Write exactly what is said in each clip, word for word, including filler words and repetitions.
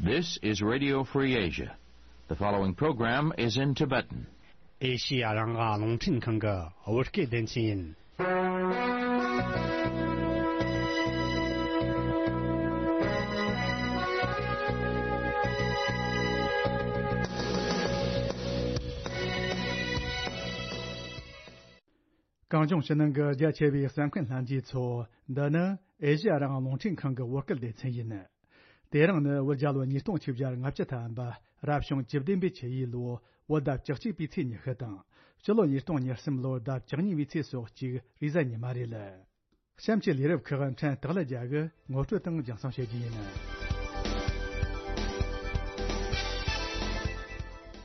This is Radio Free Asia. The following program is in Tibetan. ཨེ་ཤི་ཡ་རང་དབང་རླུང་འཕྲིན་ཁང་གི་བོད་སྐད་སྡེ་ཚན་ཡིན། གངས་ལྗོངས་ཕྱི་ནང་གི་རྒྱ་ཆེ་བའི་གསན་མཁན་ལྷན་རྒྱས་ཚོ། འདི་ནི་ཨེ་ཤི་ཡ་རང་དབང་རླུང་འཕྲིན་ཁང་གི་བོད་སྐད་སྡེ་ཚན་ཡིན། དེ་རིང་ནི་བོད་རྒྱལ་ལོ་ཉིས་སྟོང་ཆིག་བརྒྱ་ལྔ་བཅུ་ཐམ་པ། རབ་བྱུང་བཅུ་བདུན་པའི་ཆུ་ཡོས་ལོའི་བོད་ཟླ་བཅུ་གཅིག་པའི་ཚེས་ཉི་ཤུ་དང་། སྤྱི་ལོ་ཉིས་སྟོང་ཉེར་གསུམ་ལོའི་ཟླ་བཅུ་གཉིས་པའི་ཚེས་སོ་གཅིག་རེས་གཟའ་ཉི་མ་རེད། གཤམ་གྱི་ལས་རིམ་ཁག་ཕྲན་སྟག་ལྷ་རྒྱལ་གྱིས་ངོ་སྤྲོད་དང་རྒྱང་སྲིང་བྱེད་རྒྱུ་ཡིན།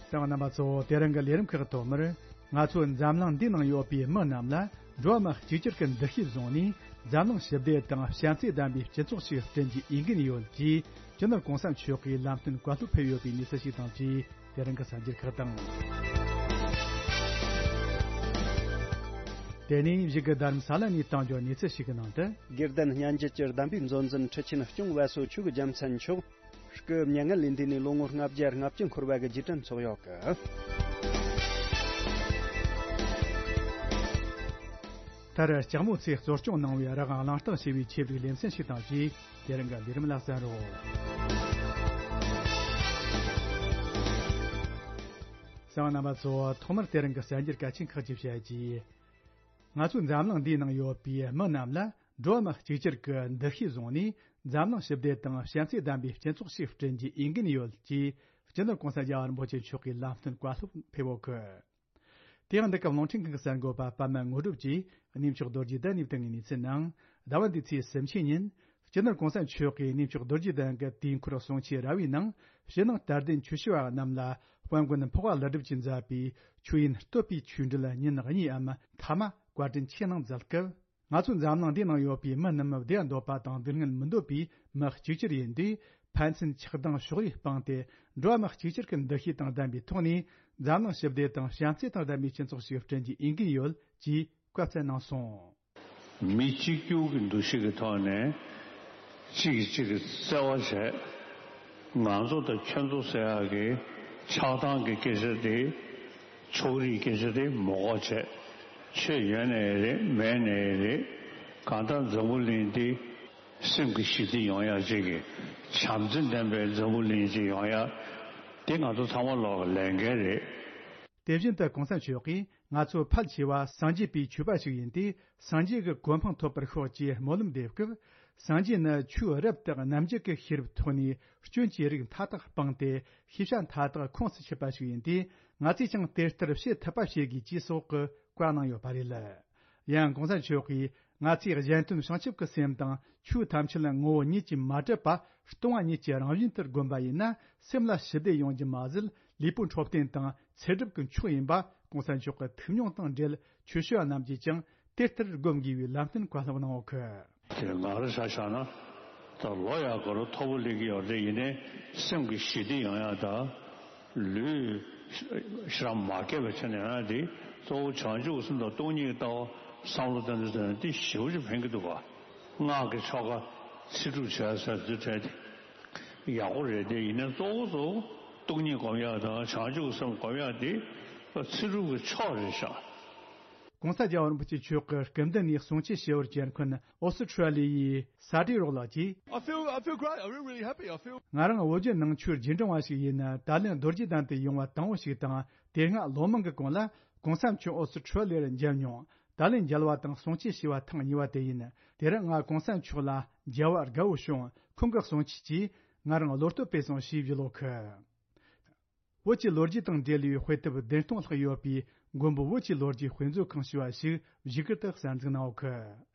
གསན་པ་རྣམ་པ་ཚོ། དེ་རིང་གི་ལས་རིམ་ཁག་ཐོག་མར། ང་ཚོའི་འཛམ་གླིང་འདིའི་ནང་ཡོད་པའི་མི་རྣམས་ལ་འགྲོ་བ་མི་གཅིག་གྱུར་གྱི་འདུ་ཤེས་བཟུང་ནས། འཛམ་གླིང་ཞི་བདེ་དང་བྱམས་བརྩེ་ལྡན་པའི་སྤྱི་ཚོགས་ཤིག་བསྐྲུན་རྒྱུའི་འོས་འགན་ཡོད་ཅེས། སྤྱི་ནོར་གོང་ས་མཆོག་གིས་ལམ་སྟོན་བཀའ་སློབ་ཕེབས་ཡོད་པའི་གནས་ཚུལ་ཞིག་དང་བཅས། དེ་རིང་གི་གསར་འགྱུར་ཁག་དང་། དེ་ནས་གཞུག་གི་རྡ་རམ་ས་ལ་ནས་བཏང་རྒྱུ་གནས་ཚུལ་ཞིག་གི་ནང་དུ། དགེ་ལྡན་སྙན་བརྒྱུད་ཀྱི་གདམས་པའི་མཛོད་འཛིན་ཁྲི་ཆེན་སྐྱོང་བ་སོགས་ཆོས་ཀྱི་རྒྱལ་མཚན་མཆོག་སྐུ་མྱ་ངན་ལས་འདས་ནས་ལོ་ངོ་ལྔ་བརྒྱ་ལྔ་བཅུ་འཁོར་བ་གི་རྗེས་དྲན་ཚོགས་ཡོད་གི། མཐར་ལྕགས་མོ་ཚོས་གཙོ་སྐྱོང་གནང་བའི་རང་དབང་གླེང་སྟེགས་ཞེས་པའི་ཆེད་དུ་ལེ་ཚན་ཞིག་དང་བཅས། དེ་རིང་གི་ལས་རིམ་ལ་གསན་རོགས། གསན་པ་རྣམ་པ་ཚོ། ཐོག་མར་དེ་རིང་གི་གསར་འགྱུར་གལ་ཆེན་ཁག་ཅིག་བཤད་རྒྱུ། ང་ཚོའི་འཛམ་གླིང་འདིའི་ནང་ཡོད་པའི་མི་རྣམས་ལ་འགྲོ་བ་མི་གཅིག་གྱུར་གྱི་འདུ་ཤེས་བཟུང་ནས། འཛམ་གླིང་ཞི་བདེ་དང་བྱམས་བརྩེ་ལྡན་པའི་སྤྱི་ཚོགས་ཤིག་བསྐྲུན་རྒྱུའི་འོས་འགན་ཡོད་ཅེས། སྤྱི་ནོར་གོང་ས་རྒྱལ་བ་རིན་པོ་ཆེ་མཆོག་གིས་ལམ་སྟོན་བཀའ་སློབ་ཕེབས་ཡོད་གི། དེ་ཡང་འདི་སྐབས་རླུང་འཕྲིན་ཁང་གི་གསར་འགོད་པ་པདྨ་དངོས་གྲུབ་ཀྱིས་གནས་མཆོག་རྡོ་རྗེ་གདན་ནས་བཏང་བའི་གནས་ཚུལ་ནང་། ཟླ་བ་འདིའི་ཚེས་སུམ་ཅུ་ཉིན། སྤྱི་ནོར་གོང་ས་མཆོག་གིས་གནས་མཆོག་རྡོ་རྗེ་གདན་གྱི་དུས་འཁོར་གསུང་ཆོས་ར་བའི་ནང་། ཕྱི་ནང་དད་ལྡན་ཆོས་ཞུ་བ་རྣམས་ལ་དཔལ་མགོན་འཕགས་པ་ཀླུ་སྒྲུབ་ཀྱིས་མཛད་པའི་ཆོས་དབྱིངས་བསྟོད་པའི་ཆོས་འབྲེལ་ཉིན་གཉིས་འམ་ཐ་མ་བཀའ་དྲིན་ཆེ་གནང་མཛད་སྐབས། ང་ཚོའི་འཛམ་གླིང་འདིའི་ནང་ཡོད་པའི་མི་རྣམས་བདེ་བ་འདོད་པ་དང་སྡུག་བསྔལ་མི་འདོད་པའི་མི་གཅིག་གྱུར་ཡིན་དུས། ཕན་ཚུན་ཆགས་སྡང་ཕྱོགས་རིས་སྤངས་ཏེ། འགྲོ་བ་མི་གཅིག་གྱུར་གྱི་འདུ་ཤེས་དང་ལྡན་པའི་ཐོག་ནས། འཛམ་གླིང་ཞི་བདེ་དང་བྱམས་བརྩེ་དང་ལྡན་པའི་སྤྱི་ཚོགས་ཤིག་བསྐྲུན་རྒྱུའི་འོས་འགན་ཡོད་ཅེས་བཀའ་སྩལ་གནང་སོང་། མི་གཅིག་གྱུར་གྱི་འདུ་ཤེས་ཀྱི་ཐོག་ནས་གཅིག་གིས་གཅིག་གི་བརྩེ་བ་བྱས། ང་ཚོ་དང་ཁྱོད་ཚོ་ཟེར་ཡག་གི་ཆགས་སྡང་གི་སྐད་ཆ་དེ། ཕྱོགས་རིས་སྐད་ཆ་དེ་མི་དགོས་བྱས། ཆོས་ཡོད་ནའི་རེད། མེད་ནའི་རེད། གང་ལྟར་འཛམ་བུ་གླིང་འདི་སེམས་ཀྱི་ཞི་བདེ་ཡོང་ཡག་ཅིག་གི། བྱམས་བརྩེ་ལྡན་པའི་འཛམ་བུ་གླིང་ཅིག་ཡོང་ཡག་དེ་ང་ཚོ་ཚང་མ་ལོག་གི་ལས་འགན་རེད། དེ་བཞིན་དུ་གོང་ས་མཆོག་གིས། ང་ཚོ་ཕལ་ཆེ་བ་སངས་རྒྱས་པའི་ཆོས་པ་ཞིག་ཡིན་ཏེ། སངས་རྒྱས་ཀྱི་གོ་འཕང་ཐོབ་པར་ཤོག་ཅེས་སྨོན་ལམ་འདེབས་སྐབས། སངས་རྒྱས་ནི་ཆོས་རབ་དང་རྣམ་འབྱེད་ཀྱི་ཤེས་རབ་ཐོག་ནས་སྐྱོན་གྱི་རིགས་མཐའ་དག་སྤངས་ཏེ། ཤེས་བྱ་མཐའ་དག་ཁོངས་སུ་ཆུད་པ་ཞིག་ཡིན་ཏེ། ང་ཚོས་ཀྱང་དེ་ལྟར་བྱེད་ཐུབ་པ་བྱེད་དགོས་ཅེས་སོགས་ཀྱི་བཀའ་གནང་ཡོད་པ་རེད། ཡང་གོང་ས་མཆོག་གིས། ང་ཚོས་གཞན་དོན་བྱང་ཆུབ་ཀྱི་སེམས་དང་། ཆོས་ཐམས་ཅད་ངོ་བོ་ཉིད་ཀྱིས་མ་གྲུབ་པ། སྟོང་པ་ཉིད་ཀྱི་རང་བཞིན་དུ་བསྒོམས་པ་ཡིན་ན། སེམས་ལ་ཞི་བདེ་ཡོང་རྒྱུ་མ་ཟད། ལུས་པོ་འཕྲོད་བསྟེན་དང་ཚེ་སྒྲིབ་ཀྱི་མཆོག་ཡིན་པ། གོང་ས་མཆོག་གི་ཐུགས་མྱོང་དང་འབྲེལ། ཆོས་ཞུ་བ་རྣམས་ཀྱིས་ཀྱང་དེ་ལྟར་སྒོམ་དགོས་པའི་ལམ་སྟོན་བཀའ་སློབ་གནང་ཡོད་གི། དེ་ང་རང་ཆ་བཞག་ན། ད་ལོ་ཡག་ག་རུ་མཐོ་པོ་སླེབས་ཀྱི་ཡོད་རེད། ཡིན་ནའི་སེམས་ཀྱི་ཞི་བདེ་ཡོང་ཡག་དང་། ལུས་ཤི་རང་མ་སྐྱེས་པ་བྱས་ནས་ཡོང་ཡག་དེ། གཙོ་བོ་བྱང་ཆུབ་སེམས་དང་སྟོང་ཉིད་ལྟ་བ་བསམ་བློ་བཏང་དུས་ཙམ་ནས་དེ་ཞེ་པོ་ཅིག་ཕན་གྱི་འདུག་ག། སྔགས་ཀྱི་ཆོ་ག་ཚེ་སྒྲུབ་བྱས་ཟེར་དུས་དྲན་ཏེ་ཡག་པོ་རེད། དེ་ཡིན་ནའི་གཙོ་བོ་གཙོ་བོ་སྟོང་ཉིད་སྒོམ་ཡག་དང་བྱང་ཆུབ་སེམས་སྒོམ་ཡག་དེ་ཚེ་སྒྲུབ་ཀྱི་མཆོག་རེད་ཤག། གོང་ས་རྒྱལ་བ་རིན་པོ་ཆེ་མཆོག་གི་སྐུ་མདུན་ནས་གསུང་ཆོས་ཞུ་བར་བཅར་མཁན་ཨོ་སི་ཁྲུ་ལི་ཡའི་ས་བཀྲ་རོགས་ལགས་ཀྱིས། I feel, I feel great. I feel really happy. I feel. ང་རང་བོད་བརྒྱུད་ནང་ཆོས་རྗེས་འབྲང་བ་ཞིག་ཡིན་ན། ད་ལན་རྡོ་རྗེ་གདན་དུ་ཡོང་བ་དང་པོ་ཞིག་དང་། དེ་སྔ་ལོ་མང་གི་གོང་ལ་གོང་ས་མཆོག་ཨོ་སི་ཁྲུ་ལི་ཡར་མཇལ་མྱོང་། ད་ལན་མཇལ་བ་དང་གསུང་ཆོས་ཞུ་བ་ཐེངས་གཉིས་པ་དེ་ཡིན། དེ་རིང་ང་གོང་ས་མཆོག་ལ་མཇལ་བ་དགའ་བོ་བྱུང་། ཁོང་གི་གསུང་ཆོས་ཀྱིས་ང་རང་བློ་གཏོད་སྤེལ་སོང་ཞེས་བརྗོད་ཡོད་གི། བོད་ཀྱི་ལོ་རྒྱུས་དང་འབྲེལ་བའི་དཔེ་དེབ་བདུན་སྟོང་ལྷག་ཡོད་པའི་མགོན་པོ་བོད་ཀྱི་ལོ་རྒྱུས་དཔེ་མཛོད་ཁང་ཞེས་པ་ཞིག་བཞུགས་སྒར་དུ་གསར་འཛུགས་གནང་ཡོད་གི།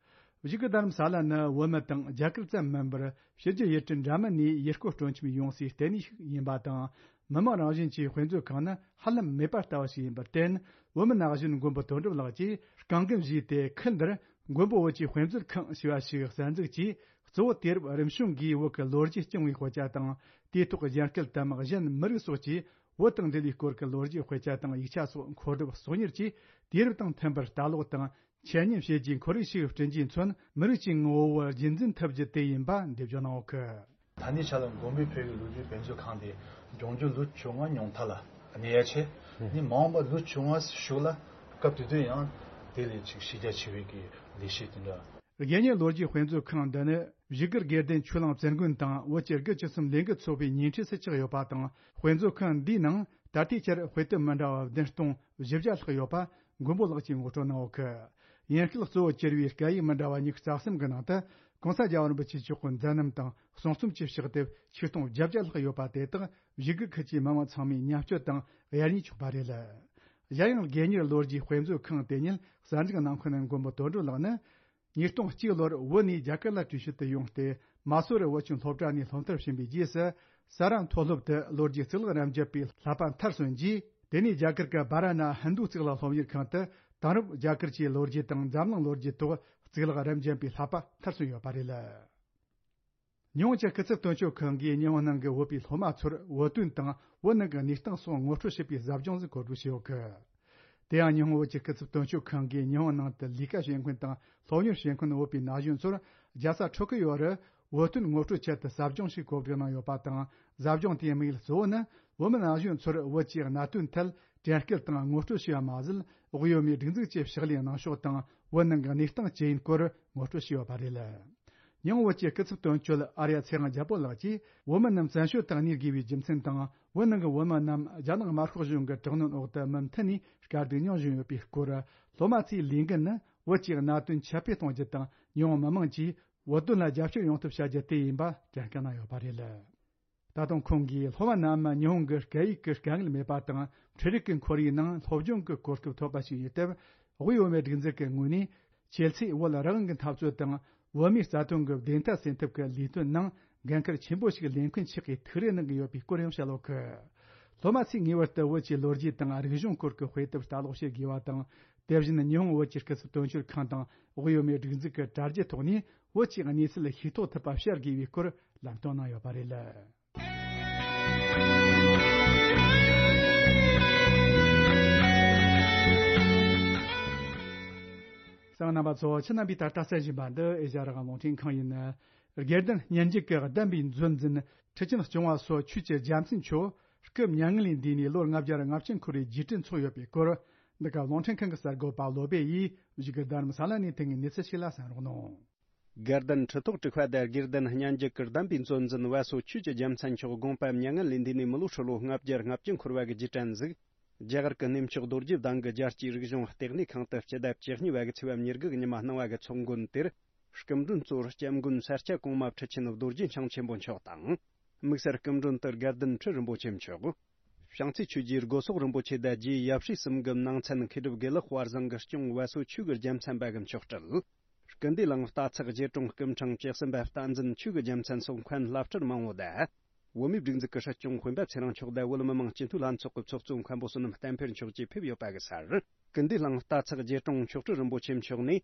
བཞུགས་སྒར་རྡ་རམ་ས་ལ་ནི་བོད་མི་དང་རྒྱ་གར་ཙམ་མིན་པར། ཕྱི་རྒྱལ་ཡུལ་གྲུ་འདྲ་མིན་ནས་ཡུལ་སྐོར་སྤྲོ་འཆམ་ཡོང་སའི་ལྟེ་གནས་ཤིག་ཡིན་པ་དང་། མི་མང་རང་བཞིན་གྱི་དཔེ་མཛོད་ཁང་ནི་ཧ་ལམ་མེད་པ་ལྟ་བུ་ཞིག་ཡིན་པར་བརྟེན། བོད་མི་ན་གཞོན་མགོན་པོ་དོན་གྲུབ་ལགས་ཀྱིས་རྐང་འགན་བཞེས་ཏེ། ཁུལ་འདིར་མགོན་པོ་བོད་ཀྱི་དཔེ་མཛོད་ཁང་ཞེས་པ་ཞིག་གསར་འཛུགས་ཀྱིས། གཙོ་བོ་དུས་རབས་རིམ་བྱུང་གིས་བོད་ཀྱི་ལོ་རྒྱུས་རྐྱང་བའི་དཔེ་ཆ་དང་། དེའི་ཐོག་གཞན་སྐད་དམ་གཞན་མི་རིགས་སོགས་ཀྱི་བོད་དང་འབྲེལ་བའི་སྐོར་གྱི་ལོ་རྒྱུས་དཔེ་ཆ་དང་ཡིག་ཆ་སོགས་མཁོ་སྒྲུབ་གསོག་ཉར་གྱིས། དུས་རབས་དང་མཐུན་པར་ལྟ་ཀློག་དང་འཆད་ཉན་བྱེད་རྒྱུའི་ཁོར་ཡུག་ཞིག་བསྐྲུན་རྒྱུས་མཚོན། མི་རིགས་ཀྱི་ངོ་བོ་རྒྱུན་འཛིན་ཐུབ་རྒྱུ་དེ་ཡིན་པ་འགྲེལ་བརྗོད་གནང་ཡོད་གི། ད་ནི་ཆ་ལ་མགོན་པོའི་བོད་ཀྱི་ལོ་རྒྱུས་དཔེ་མཛོད་ཁང་དེ་ལྗོངས་རྒྱུ་ལོ་བཅོ་ལྔ་ཉུང་མཐའ་ལ་གནས་ཡ་ཆེ། ནི་མ་འོངས་པ་ལོ་བཅོ་ལྔ་གཞུག་ལ་སྐབས་དེ་དུས་ཡང་དེ་ལས་ཅིག་གཞི་རྒྱ་ཆེ་བའི་གི་ལས་གཞི་དེ་འདྲ། དགེ་བསྙེན་ལོ་རྒྱུས་དཔེ་མཛོད་ཁང་འདི་ནི་བཞུགས་སྒར་དགེ་ལྡན་ཆོས་གླིང་བཙུན་དགོན་དང་བོད་ཀྱི་དགུ་བཅུ་གསུམ་ལས་འགུལ་ཚོགས་པའི་ཉེ་འཁྲིས་སུ་ཆགས་ཡོད་པ་དང་། དཔེ་མཛོད་ཁང་འདིའི་ནང་ད་ལྟའི་ཆར་དཔེ་དེབ་མི་འདྲ་བ་བདུན་སྟོང་བཞི་བརྒྱ་ལྷག་ཡོད་པ་མགོན་པོ་ལགས་ཀྱིས་ངོ་སྤྲོད་གནང་ཡོད་གི། ཡིན་སྐད་གཙོ་བོ་གྱུར་བའི་སྐད་ཡིག་མི་འདྲ་བ་ཉི་ཤུ་རྩ་གསུམ་གྱི་ནང་དུ་༸གོང་ས་༸རྒྱལ་བ་རིན་པོ་ཆེ་མཆོག་གི་མཛད་རྣམ་དང་གསུང་རྩོམ་བཅས་ཕྱག་དེབ་ཆིག་སྟོང་བརྒྱད་བརྒྱ་ལྷག་ཡོད་པ་དེ་དག་བཞུགས་སྒར་ཁུལ་གྱི་མི་མང་ཚང་མས་མཉམ་སྤྱོད་དང་གཡར་ཉན་ཆོག་པ་རེད། གཞན་ཡང་དགེ་བསྙེན་ལོ་རྒྱུས་དཔེ་མཛོད་ཁང་དེ་ཉིད་གསར་འཛུགས་གནང་མཁན་མགོན་པོ་དོན་གྲུབ་ལགས་ནི། ཉིས་སྟོང་གཅིག་ལོར་བོད་ནས་རྒྱ་གར་ལ་བྲོས་བྱོལ་དུ་ཡོང་སྟེ། མ་སུ་རི་བོད་ཁྱིམ་སློབ་གྲྭ་ནས་སློབ་མཐར་ཕྱིན་པའི་རྗེས་སུ། ས་རཱ་མཐོ་སློབ་ཏུ་ལོ་རྒྱུས་གཙུག་ལག་རབ་འབྱེད་པའི་བསླབ་པ་མཐར་སོན་རྗེས། དེ་ནས་རྒྱ་གར་གྱི་བཱ་ར་ཎ་ཧིན་རྡུ་གཙུག་ལག་སློབ་གཉེར་ཁང་དུ་དེང་རབས་རྒྱ་གར་གྱི་ལོ་རྒྱུས་དང་འཛམ་གླིང་ལོ་རྒྱུས་ཐོག་གཙུག་ལག་རབ་འབྱེད་པའི་བསླབ་པ་མཐར་སོན་ཡོད་པ་རེད། ཉི་ཧོང་གི་སྐུ་ཚབ་དོན་གཅོད་ཁང་གིས་ཉི་ཧོང་ནང་གི་བོད་པའི་སློབ་མ་ཚོར་བོད་དོན་དང་བོད་ནང་གི་གནས་སྟངས་སོགས་ངོ་སྤྲོད་བྱེད་པའི་ཟབ་སྦྱོང་ཞིག་གོ་སྒྲིག་བྱས་ཡོད་གི། དེ་ཡང་ཉི་ཧོང་བོད་ཀྱི་སྐུ་ཚབ་དོན་གཅོད་ཁང་གིས་ཉི་ཧོང་ནང་དུ་ལས་ཀ་བྱེད་མཁན་དང་སློབ་གཉེར་བྱེད་མཁན་བོད་པའི་ན་གཞོན་ཚོར་རྒྱལ་ས་ཊོ་ཀི་ཡོ་རུ་བོད་དོན་ངོ་སྤྲོད་ཆེད་དུ་ཟབ་སྦྱོང་ཞིག་གོ་སྒྲིག་གནང་ཡོད་པ་དང་། ཟབ་སྦྱོང་དེའི་དམིགས་ཡུལ་གཙོ་བོ་ནི་བོད་མི་ན་གཞོན་ཚོར་བོད་ཀྱི་གནད་དོན་ཐད་དྲན་སྐུལ་དང་ངོ་སྤྲོད་བྱས་པ་མ་ཟད། དབུས་བོད་མིའི་སྒྲིག་འཛུགས་ཀྱི་ཕྱག་ལས་གནང་ཕྱོགས་དང་བོད་ནང་གི་གནས་སྟངས་ཇི་ཡིན་སྐོར་ངོ་སྤྲོད་བྱས་ཡོད་པ་རེད། ཉི་ཧོང་བོད་ཀྱི་སྐུ་ཚབ་དོན་གཅོད་ཨར་ཡ་ཚེ་དབང་རྒྱལ་པོ་ལགས་ཀྱིས་བོད་མི་རྣམས་བཙན་བྱོལ་དུ་གནས་དགོས་པའི་རྒྱུ་མཚན་དང་། བོད་ནང་གི་བོད་མི་རྣམས་རྒྱ་ནག་དམར་ཤོག་གཞུང་གི་དྲག་གནོན་འོག་ཏུ་མུ་མཐུད་ནས་དཀའ་སྡུག་མྱོང་བཞིན་ཡོད་པའི་སྐོར། སློབ་མ་ཚོའི་ལས་འགན་ནི་བོད་ཀྱི་གནད་དོན་ཁྱབ་སྤེལ་གཏོང་རྒྱུ་དང་། ཉི་ཧོང་མི་དམངས་ཀྱིས་བོད་དོན་ལ་རྒྱབ་སྐྱོར་ཡོང་ཐབས་བྱ་རྒྱུ་དེ་ཡིན་པ་དྲན་སྐུལ་གནང་ཡོད་པ་རེད། ད་དུང་ཁོང་གིས་སློབ་མ་རྣམས་ཉི་ཧོང་གི་སྐད་ཡིག་གི་དཀའ་ངལ་མེད་པ་དང་། འཕྲུལ་རིག་གི་ཁོར་ཡུག་ནང་སློབ་སྦྱོང་གི་གོ་སྐབས་ཐོབ་པ་ཞིག་ཡིན་སྟབས། དབུས་བོད་མིའི་སྒྲིག་འཛུགས་ཀྱི་ངོས་ནས་ཁྱེད་ཚོས་བོད་རང་དབང་གི་འཐབ་རྩོད་དང་བོད་མིའི་རྩ་དོན་གྱི་བདེན་མཐའ་གསལ་ཐབས་ཀྱི་ལས་དོན་ནང་འགན་འཁུར་ཆེན་པོ་ཞིག་ལེན་མཁན་ཞིག་གི་ཐུགས་རེ་གནང་གི་ཡོད་པའི་སྐོར་ཡང་བཤད་ཡོད་གི། སློབ་མ་ཚོས་ངེས་པར་དུ་བོད་ཀྱི་ལོ་རྒྱུས་དང་རིག་གཞུང་སྐོར་གྱི་དཔེ་དེབ་ལྟ་ཀློག་བྱེད་དགོས་པ་དང་། དེ་བཞིན་ཉི་ཧོང་བོད་ཀྱི་སྐུ་ཚབ་དོན་གཅོད་ཁང་དང་དབུས་བོད་མིའི་སྒྲིག་འཛུགས་ཀྱི་དྲ་རྒྱའི་ཐོག་ནས་བོད་ཀྱི་གནས་ཚུལ་ཤེས་རྟོགས་ཐུབ་པ་བྱ་དགོས་པའི་སྐོར་ལམ་སྟོན་གནང་ཡོད་པ་རེད། གསན་མཁན་རྣམ་པ་ཚོ། ཁྱེད་རྣམ་པས་ད་ལྟ་གསན་བཞིན་པ་འདི་ཨེ་ཤ་ཡ་རང་དབང་རླུང་འཕྲིན་ཁང་ཡིན། དགེ་ལྡན་སྙན་འཇེབས་ཀྱི་གདམས་པའི་མཛོད་འཛིན་ཁྲི་ཆེན་སྐྱོང་བ་སོགས་ཆོས་ཀྱི་རྒྱལ་མཚན་མཆོག་སྐུ་མྱ་ངན་ལས་འདས་ནས་ལོ་ལྔ་བརྒྱ་ལྔ་བཅུ་འཁོར་བའི་རྗེས་དྲན་འཚོགས་ཡོད་པའི་སྐོར། འདི་ག་རླུང་འཕྲིན་ཁང་གི་གསར་འགོད་པ་བློ་སྦེ་ཡིས་བཞུགས་སྒར་རྡ་རམ་ས་ལ་ནས་ཐོན་པའི་གནས་ཚུལ་ཞིག་ལ་གསན་རོགས་གནང་། དགའ་ལྡན་ཁྲི་ཐོག་དྲུག་པ་དང་དགེ་ལྡན་སྙན་འཇེབས་ཀྱི་གདམས་པའི་མཛོད་འཛིན་བ་སོ་ཆོས་ཀྱི་རྒྱལ་མཚན་མཆོག་དགོངས་པ་མྱ་ངན་ལས་འདས་ནས་མི་ལོ་ཧྲིལ་བོ་ལྔ་བརྒྱ་ལྔ་བཅུ་འཁོར་བ་གི་རྗེས་དྲན་གཟིགས། རྒྱ་གར་གྱི་གནས་མཆོག་རྡོ་རྗེ་གདན་གྱི་རྒྱལ་སྤྱིའི་རིག་གཞུང་ལྟེ་གནས་ཁང་དུ་སྤྱི་ཟླ་བཅུ་གཉིས་པ་གི་ཚེས་པ་ཉེར་དགུ་གི་ཉི་མ་གནང་བ་གི་ཚོགས་མགོན་དེར། སྐུ་མགྲོན་གཙོ་བོར་སྐྱབས་མགོན་ས་སྐྱ་གོང་མ་ཁྲི་ཆེན་རྡོ་རྗེ་འཆང་ཆེན་པོ་མཆོག་དང་། དམིགས་བསལ་སྐུ་མགྲོན་དུ་དགའ་ལྡན་ཁྲི་རིན་པོ་ཆེ་མཆོག་བྱང་རྩེ་ཆོས་རྗེ་སྒོ་སོག་རིན་པོ་ཆེ་དང་རྗེ་ཡབ་སྲས་གསུམ་གྱི་ནང་ཚན་མཁས་གྲུབ་དགེ་ལེགས་དཔལ་བཟང་གིས་སྐྱོང་བ་སོ་ཆོས་ཀྱི་རྒྱལ་མཚན་པ་གི་མཆོག་སྤྲུལ། སྐུ་འདུས་གླིང་རྟ་ཚག་རྗེ་དྲུང་སྐུ་ཕྲེང་བཅུ་གསུམ་པ་བསྟན་འཛིན་ཆོས་ཀྱི་རྒྱལ་མཚན་སོགས་མཁན་བླ་སྤྲུལ་མང་བོ་དང་། བོད་མིའི་སྒྲིག་འཛུགས་ཀྱི་སྲིད་སྐྱོང་སྤེན་པ་ཚེ་རིང་མཆོག་དང་བོད་མི་མང་སྤྱི་འཐུས་ལྷན་ཚོགས་ཀྱི་ཚོགས་གཙོ་མཁན་པོ་བསོད་ནམས་བསྟན་འཕེལ་མཆོག་བཅས་ཕེབས་ཡོད་པ་གི་སར། སྐུ་འདུས་གླིང་རྟ་ཚག་རྗེ་དྲུང་མཆོག་སྤྲུལ་རིན་པོ་ཆེ་མཆོག་ནས།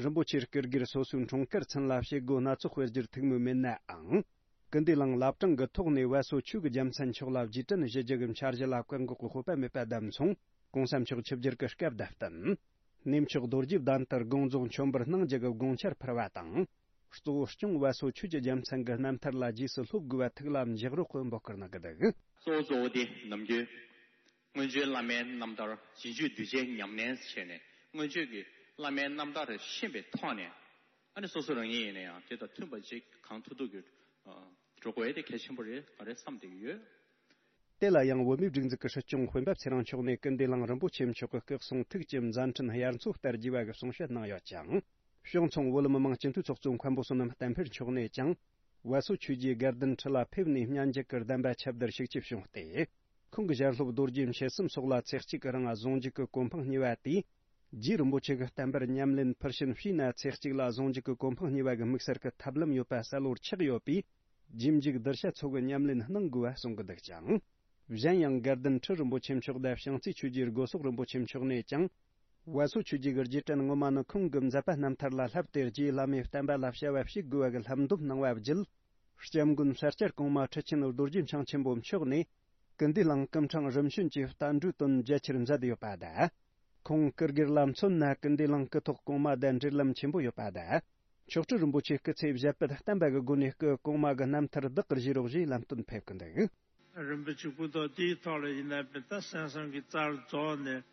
རིན་པོ་ཆེའི་སྐུ་སྒེར་སོ་སོའི་འཁྲུངས་སྐར་ཚུན་ལ་བྱེད་སྒོ་སྣ་ཚོགས་སྤེལ་རྒྱུར་ཐུགས་མོས་མེད་ནའང་། སྐུ་འདུས་གླིང་བླ་བྲང་གི་ཐོག་ནས་བ་སོ་ཆོས་ཀྱི་རྒྱལ་མཚན་མཆོག་ལ་རྗེས་དྲན་ཞུ་རྒྱུ་གི་འཆར་གཞི་ལ་བཀག་འགོག་གི་དཔོད་པ་མེད་པ་བདམས་སོང་། གོང་ས་མཆོག་ཆིབས་བསྒྱུར་གྱི་སྐབས་དང་བསྟུན། གནས་མཆོག་རྡོ་རྗེ་གདན་དུ་དགོངས་རྫོགས་མཆོད་འབུལ་གནང་རྒྱུ་གི་དགོངས་འཆར་ཕུལ་བ་དང་། གཙོ་བོ་སྐྱོང་བ་སོ་ཆོས་ཀྱི་རྒྱལ་མཚན་གྱི་རྣམ་ཐར་ལ་རྗེས་སུ་སློབ་དགོས་པ་ཐུགས་ལ་འཇགས་རོགས་ཀྱི་འབོད་སྐུལ་གནང་གི་འདུག། གཙོ་བོ་གཙོ་བོ་དེ་ནམ་རྒྱུན་སྔོན་བྱོན་བླ་མའི་རྣམ་ཐར་རྗེས་འཇུག་གདུལ་བྱའི་ཉམས་ལེན་བྱས་ནས། སྔོན་བྱོན་གྱི་བླ་མའི་རྣམ་ཐར་ཤེས་པའི་ཐོག་ནས། ཨ་ནི་སོ་སོ་རང་ཉིད་ཡིན་ན་ཡང་དེ་དང་མཐུན་པ་ཅིག་གང་ཐུབ་ཐུབ་ཀྱིས་འགྲོ་དགོས་ཡ་དེ་གལ་ཆེན་པོ་རེད་ག་རེ་བསམ་བསྡད་ཀྱི་ཡོད། དེ་ལ་ཡང་བོད་མིའི་སྒྲིག་འཛུགས་ཀྱི་སྲིད་སྐྱོང་སྤེན་པ་ཚེ་རིང་མཆོག་ནས་སྐུ་འདུས་གླིང་རིན་པོ་ཆེ་མཆོག་གི་སྐུ་གསུང་ཐུགས་ཀྱི་མཛད་འཕྲིན་དབྱར་མཚོ་ལྟར་རྒྱས་པ་གི་གསུང་བཤད་གནང་ཡོད་ཅིང་། བྱང་ཚང་བོད་མི་མང་སྤྱི་འཐུས་ཚོགས་གཙོ་མཁན་པོ་བསོད་ནམས་བསྟན་འཕེལ་མཆོག་ནས་ཀྱང་། བ་སོ་ཆོས་རྗེ་དགའ་ལྡན་ཁྲི་ལ་ཕེབས་ནས་སྙན་འཇེབས་ཀྱི་གདམས་པ་ཁྱབ་བརྡལ་ཤུགས་ཆེ་བྱུང་སྟེ། ཁོང་གི་ཞལ་སློབ་རྡོ་རྗེ་མཆེད་གསུམ་སོགས་ལ་ཚེགས་གཅིག་གི་རིང་གཟུངས་འཇུག་གི་གོ་འཕང་བརྙེས་པ་དེས། རྗེ་རིན་པོ་ཆེ་གི་བསྟན་པར་ཉམས་ལེན་ཕུལ་ཕྱིན་བྱས་ན་ཚེགས་གཅིག་ལ་གཟུངས་འཇུག་གི་གོ་འཕང་བརྙེས་པ་གི་དམིགས་བསལ་གྱི་ཐབས་ལམ་ཡོད་པ་གསལ་བོར་ཆགས་ཡོད་པས། རྗེས་འཇུག་གདུལ་བྱ་ཚོ་གི་ཉམས་ལེན་གནང་དགོས་པ་གསུང་གི་འདུག་ཅིང་། གཞན་ཡང་དགའ་ལྡན་ཁྲི་རིན་པོ་ཆེ་མཆོག་དང་བྱང་རྩེ་ཆོས་རྗེ་སྒོ་སོག་རིན་པོ་ཆེ་མཆོག་ནས་ཀྱང་། བ་སོ་ཆོས་རྗེ་གི་རྗེས་དྲན་ངོ་མ་ནི་ཁོང་གི་མཛད་པ་རྣམ་ཐར་ལ་བསླབས་ཏེ། རྗེ་བླ་མའི་བསྟན་པ་ལ་བྱ་བ་བྱེད་དགོས་པ་གི་བསླབ་འདོམས་གནང་བ་བརྒྱུད། སྐྱབས་མགོན་ས་སྐྱ་གོང་མ་ཁྲི་ཆེན་རྡོ་རྗེ་འཆང་ཆེན་པོ་མཆོག་ནས། སྐུ་འདུས་གླིང་སྐུ་ཕྲེང་རིམ་བྱོན་གྱི་བསྟན་འགྲོའི་དོན་རྒྱ་ཆེར་མཛད་ཡོད་པ་དང་། ཁོང་སྐུ་སྒེར་ལ་མཚོན་ན་སྐུ་འདུས་གླིང་སྐུ་ཐོག་གོང་མ་དང་འབྲེལ་ལམ་ཆེན་པོ་ཡོད་པ་དང་། མཆོག་སྤྲུལ་རིན་པོ་ཆེ་སྐུ་ཚེ་ཞབས་པད་བརྟན་པ་གི་སྒོ་ནས་སྐུ་གོང་མ་གི་རྣམ་ཐར་བདག་གིར་བཞེས་རོགས་ཞེས་ལམ་སྟོན་ཕེབས་ཀྱི་འདུག་རིན་པོ་ཆེ་སྐུ་ཐོག་དེའི་ཐོག་ལ་ཡིན་ན་པའི་ད་གསན་བསམ་གྱི་རྩར་རྫོགས་ནས་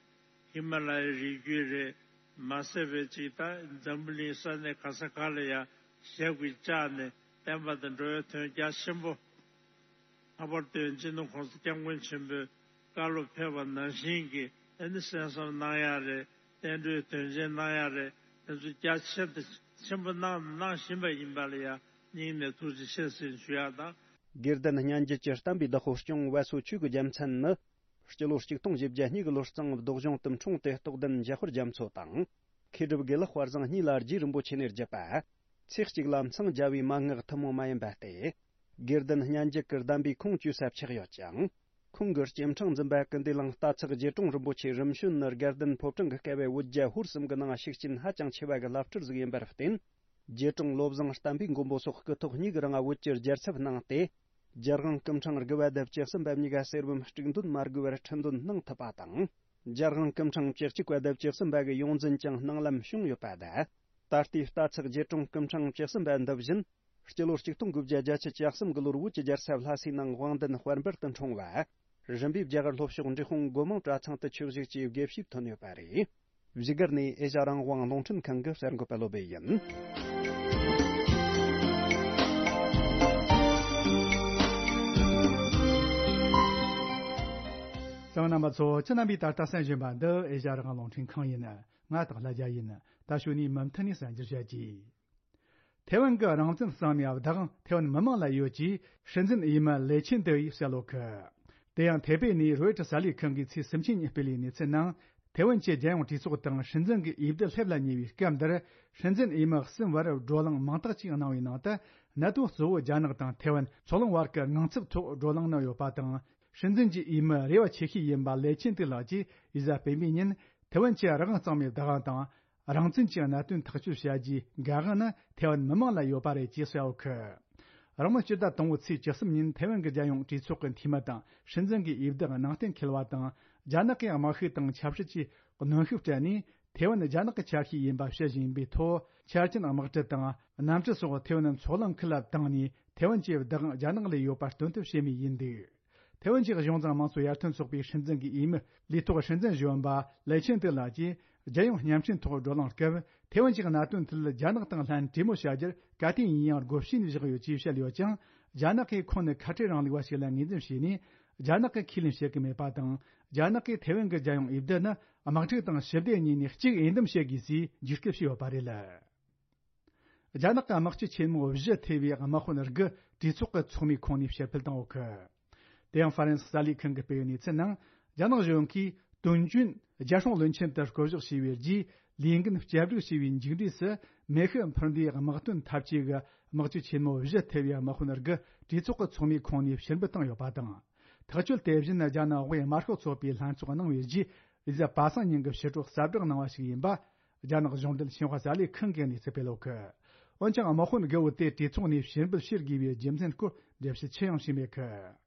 ཧི་མ་ལ་ཡའི་རི་རྒྱུད་རེད། མ་ཟད་པའི་ཅིག་ད་འཛམ་བུ་གླིང་ས་གནས་ག་ས་ག་ལ་ཡང་ཞབས་ཀྱིས་བཅགས་ནས་བསྟན་པ་དང་འགྲོ་བའི་དོན་རྒྱ་ཆེན་པོ། ལྷག་པར་དུ་སྤྱི་ནོར་༸གོང་ས་༸སྐྱབས་མགོན་ཆེན་པོས་བཀའ་སློབ་ཕེབས་པ་ནང་བཞིན་གྱི་ཨ་ནི་གསན་བསམ་གནང་ཡག་རེད། བསྟན་འགྲོའི་དོན་ཆེན་གནང་ཡག་རེད། དེ་ཚོ་རྒྱ་ཆེ་དང་ཆེན་པོ་གནང་དང་གནང་བཞིན་པ་ཡིན་པ་ལ་ཡང་སྙིང་ནས་ཐུགས་རྗེ་ཆེ་ཟེར་ཞུ་ཡག་དང་། དགེ་ལྡན་སྙན་བརྒྱུད་ཀྱི་བསྟན་པའི་བདག་པོ་སྐྱོང་བ་སོ་ཆོས་ཀྱི་རྒྱལ་མཚན་ནི། སྤྱི་ལོ་ཆིག་སྟོང་བཞི་བརྒྱ་གཉིས་ཀྱི་ལོ་རྩིང་བདོ་གཞུང་དུ་འཁྲུངས་ཏེ་རྟོགས་ལྡན་འཇམ་དཔལ་རྒྱ་མཚོ་དང་། མཁས་གྲུབ་དགེ་ལེགས་དཔལ་བཟང་གཉིས་ལ་རྗེ་རིན་པོ་ཆེ་ནས་བརྒྱུད་པ། ཚེ་གཅིག་ལ་མཚང་རྒྱ་བའི་མན་ངག་ཐུན་མོང་མ་ཡིན་པ་སྟེ། དགེ་ལྡན་སྙན་བརྒྱུད་ཀྱི་གདམས་པའི་ཁུངས་བཅོལ་ས་ཆགས་ཡོད་ཅིང་། ཁོང་གི་སྐྱེ་ཕྲེང་འཛིན་པ་ཀུན་བདེ་གླིང་རྟ་ཚག་རྗེ་དྲུང་རིན་པོ་ཆེ་རིམ་བྱོན་ནི་དགའ་ལྡན་ཕོ་བྲང་གི་སྐལ་བའི་བོད་རྒྱལ་ཧོར་གསུམ་གྱི་ནང་ཤུགས་རྐྱེན་ཧ་ཅང་ཆེ་བ་གི་བླ་སྤྲུལ་ཟིག་ཡིན་པར་བརྟེན། རྗེ་དྲུང་བློ་བཟང་བསྟན་པའི་མགོན་པོ་སོགས་སྐུ་ཐོག་གཉིས་ཀྱི་རིང་བོད་ཀྱི་རྒྱལ་ཚབ་གནང་སྟེ། རྒྱལ་དབང་སྐུ་ཕྲེང་དགུ་པ་དང་བཅུ་གསུམ་པ་གཉིས་ཀ་གསེར་བུམ་དཀྲུག་འདོན་མ་དགོས་པར་ཁྲི་འདོན་གནང་ཐུབ་པ་དང་། རྒྱལ་དབང་སྐུ་ཕྲེང་བཅུ་གཅིག་པ་དང་བཅུ་གསུམ་པ་གི་ཡོངས་འཛིན་ཀྱང་གནང་ལམ་བྱུང་ཡོད་པ་དང་། ད་ལྟའི་རྟ་ཚག་རྗེ་དྲུང་སྐུ་ཕྲེང་བཅུ་གསུམ་པ་འདི་བཞིན། སྤྱི་ལོ་ཆིག་སྟོང་དགུ་བརྒྱ་བརྒྱད་ཅུ་གྱ་གསུམ་གྱི་ལོར་བོད་ཀྱི་རྒྱལ་ས་ལྷ་སའི་ནང་དབང་ལྡན་དཔལ་འབར་དུ་འཁྲུངས་པ། རིམ་པས་རྒྱ་གར་ལྷོ་ཕྱོགས་འབྲས་སྤུངས་སྒོ་མང་གྲྭ་ཚང་དུ་ཆོས་ཞུགས་ཀྱིས་དགེ་བཤེས་ཐོན་ཡོད་པ་རེད། བཞུགས་སྒར་ནས་ཨེ་ཤ་རང་དབང་རླུང་འཕྲིན་ཁང་གི་གསར་འགོད་པ་བློ་བྷེ་ཡིན། གསན་མཁན་རྣམ་པ་ཚོ། ཁྱེད་རྣམ་པས་ད་ལྟ་གསན་བཞིན་པ་འདི་ཨེ་ཤ་རང་དབང་རླུང་འཕྲིན་ཁང་ཡིན། ང་སྟག་ལྷ་རྒྱལ་ཡིན། ད་གཞུག་ནས་མུ་མཐུད་ནས་གསན་རྒྱུར་བྱ་རྒྱུ། ཐེ་ཝན་གྱི་རང་བཙན་གཙང་མའི་བདག་དབང་ཐེ་ཝན་མི་མང་ལ་ཡོད་ཅེས་སྲིད་འཛིན་འོས་མི་ལེ་ཆིན་ཏེ་ཡིས་གསལ་ལོ་ཁུ། དེ་ཡང་ཐེ་པེ་ནས་རོའི་ཊར་གསར་ལས་ཁང་གིས་ཚེས་སུམ་ཅུ་ཉིན་སྤེལ་བའི་གནས་ཚུལ་ནང་། ཐེ་ཝན་གྱི་རྒྱལ་ཡོངས་གྲོས་ཚོགས་དང་སྲིད་འཛིན་གྱི་འོས་བསྡུ་སླེབས་ལ་ཉེ་བའི་སྐབས་འདིར། སྲིད་འཛིན་འོས་མི་གསུམ་བར་བགྲོ་གླེང་མིང་རྟགས་ཅིག་གནང་བའི་ནང་དུ། གནད་དོན་གཙོ་བོ་རྒྱ་ནག་དང་ཐེ་ཝན་ཕྱོགས་ལྷུང་བར་གྱི་དངངས་འཚབ་ཐོག་བགྲོ་གླེང་གནང་ཡོད་པ་དང་། སྲིད་འཛིན་གྱི་འོས་མི་རེ་བ་ཆེ་ཤོས་ཡིན་པ་ལེ་ཆིན་ཏེ་ལགས་ཀྱིས་འོས་གསལ་སྤེལ་མིའི་ཉིན། ཐེ་ཝན་གྱི་རང་དབང་གཙང་མའི་བདག་དབང་དང་། རང་བཙན་གྱི་གནད་དོན་ཐག་གཅོད་བྱ་རྒྱུའི་འགན་དབང་ནི་ཐེ་ཝན་མི་མང་ལ་ཡོད་པ་རེད་ཅེས་གསལ་བོ་ཁུ། རང་ལོ་སྤྱི་ཟླ་དང་པོའི་ཚེས་བཅུ་གསུམ་ཉིན་ཐེ་ཝན་གྱི་རྒྱལ་ཡོངས་གྲོས་ཚོགས་ཀྱི་འཐུས་མི་དང་སྲིད་འཛིན་གྱི་འོས་བསྡུ་ནང་བསྟན་འཁེལ་བ་དང་། རྒྱ་ནག་གི་དམག་ཤུགས་དང་ཆབ་སྲིད་ཀྱི་གནོན་ཤུགས་སྤྲད་ནས་ཐེ་ཝན་རྒྱ་ནག་གི་ཆ་ཤས་ཡིན་པ་བཤད་བཞིན་པའི་ཐོག་ཆ་རྐྱེན་དམག་གྲུ་དང་གནམ་གྲུ་སོགས་ཐེ་ཝན་མཚོ་གླིང་ཁུལ་ལ་བཏང་ནས་ཐེ་ཝན་གྱི་བདག་དབང་རྒྱ་ནག་ལ་ཡོད་པ་སྟོན་ཐབས་བྱེད་མུས་ཡིན་འདུག་ཐེ་ཝན་གྱི་གཞུང་བཟང་དམངས་གཙོ་ཡར་ཐོན་ཚོགས་པའི་སྲིད་འཛིན་གྱི་འོས་མི་ལས་ཐོག་སྲིད་འཛིན་གཞོན་པ་ལེ་ཆིན་ཏེ་ལགས་ཀྱིས་རྒྱལ་ཡོངས་བརྙན་འཕྲིན་ཐོག་བགྲོ་གླེང་སྐབས། ཐེ་ཝན་གྱི་གནད་དོན་ཐད་རྒྱ་ནག་དང་ལྷན་གྲོས་མོལ་བྱ་རྒྱུར་ག་དུས་ཡིན་ཡང་སྒོ་ཕྱེ་ནས་བཞག་ཡོད་ཅེས་བཤད་ཡོད་ཀྱང་། རྒྱ་ནག་གིས་ཁོང་ནི་ཁ་བྲལ་རིང་ལུགས་པ་ཞིག་ལ་ངོས་འཛིན་བྱས་ནས། རྒྱ་ནག་གིས་ཁས་ལེན་བྱེད་ཀྱི་མེད་པ་དང་། རྒྱ་ནག་གིས་ཐེ་ཝན་གྱི་རྒྱལ་ཡོངས་འོས་བསྡུ་ནི་དམག་འཁྲུག་དང་ཞི་བདེ་གཉིས་ནས་གཅིག་འོས་འདེམས་བྱེད་དགོས་ཞེས་བརྗོད་སྐུལ་བྱས་ཡོད་པ་རེད། རྒྱ་ནག་གི་དམག་སྤྱི་ཆེན་མོ་བཞི་ཐེ་བའི་དམག་དཔོན་དགུ་གྲོས་ཚོགས་ཀྱི་ཚོགས་མིའི་ཁོངས་ནས་ཕྱིར་འབུད་བཏང་ཡོད་གི། དེ་ཡང་ཧྥ་རན་སི་གསར་ལས་ཁང་གིས་སྤེལ་བའི་གནས་ཚུལ་ནང་། རྒྱ་ནག་གཞུང་གིས་དོན་རྐྱེན་རྒྱལ་སྲུང་བློན་ཆེན་དུ་བསྐོ་གཞག་བྱས་པའི་རྗེས། ལས་འགན་བསྐྱར་སྒྲིག་བྱས་པའི་མཇུག་འབྲས་སུ། མེ་ཤུགས་འཕུར་མདེལ་དམག་དོན་འཐབ་ཇུས་ཀྱི་དམག་སྤྱི་ཆེན་མོ་བཞི་ཐེ་བའི་དམག་དཔོན་དགུ་གྲོས་ཚོགས་ཀྱི་ཚོགས་མིའི་ཁོངས་ནས་ཕྱིར་འབུད་བཏང་ཡོད་པ་དང་། ཐག་གཅོད་དེ་བཞིན་རྒྱ་ནག་དབུས་དམར་ཤོག་ཚོགས་པའི་ལྷན་ཚོགས་གནང་བའི་རྗེས། རེས་གཟའ་པ་སངས་ཉིན་གྱི་ཕྱི་དྲོ་གསལ་བསྒྲགས་གནང་བ་ཞིག་ཡིན་པ། རྒྱ་ནག་གཞུང་འབྲེལ་ཤིན་ཧྭ་གསར་ལས་ཁང་གི་གནས་ཚུལ་སྤེལ་ཡོད་གི། འོན་ཀྱང་དམག་དཔོན་དགུ་བོ་དེ་གྲོས་ཚོགས་ནས་ཕྱིར་འབུད་བྱེད་དགོས་པའི་རྒྱུ་མཚན་སྐོར་འགྲེལ་བཤད་ཅི་ཡང་བྱས་མེད་གི།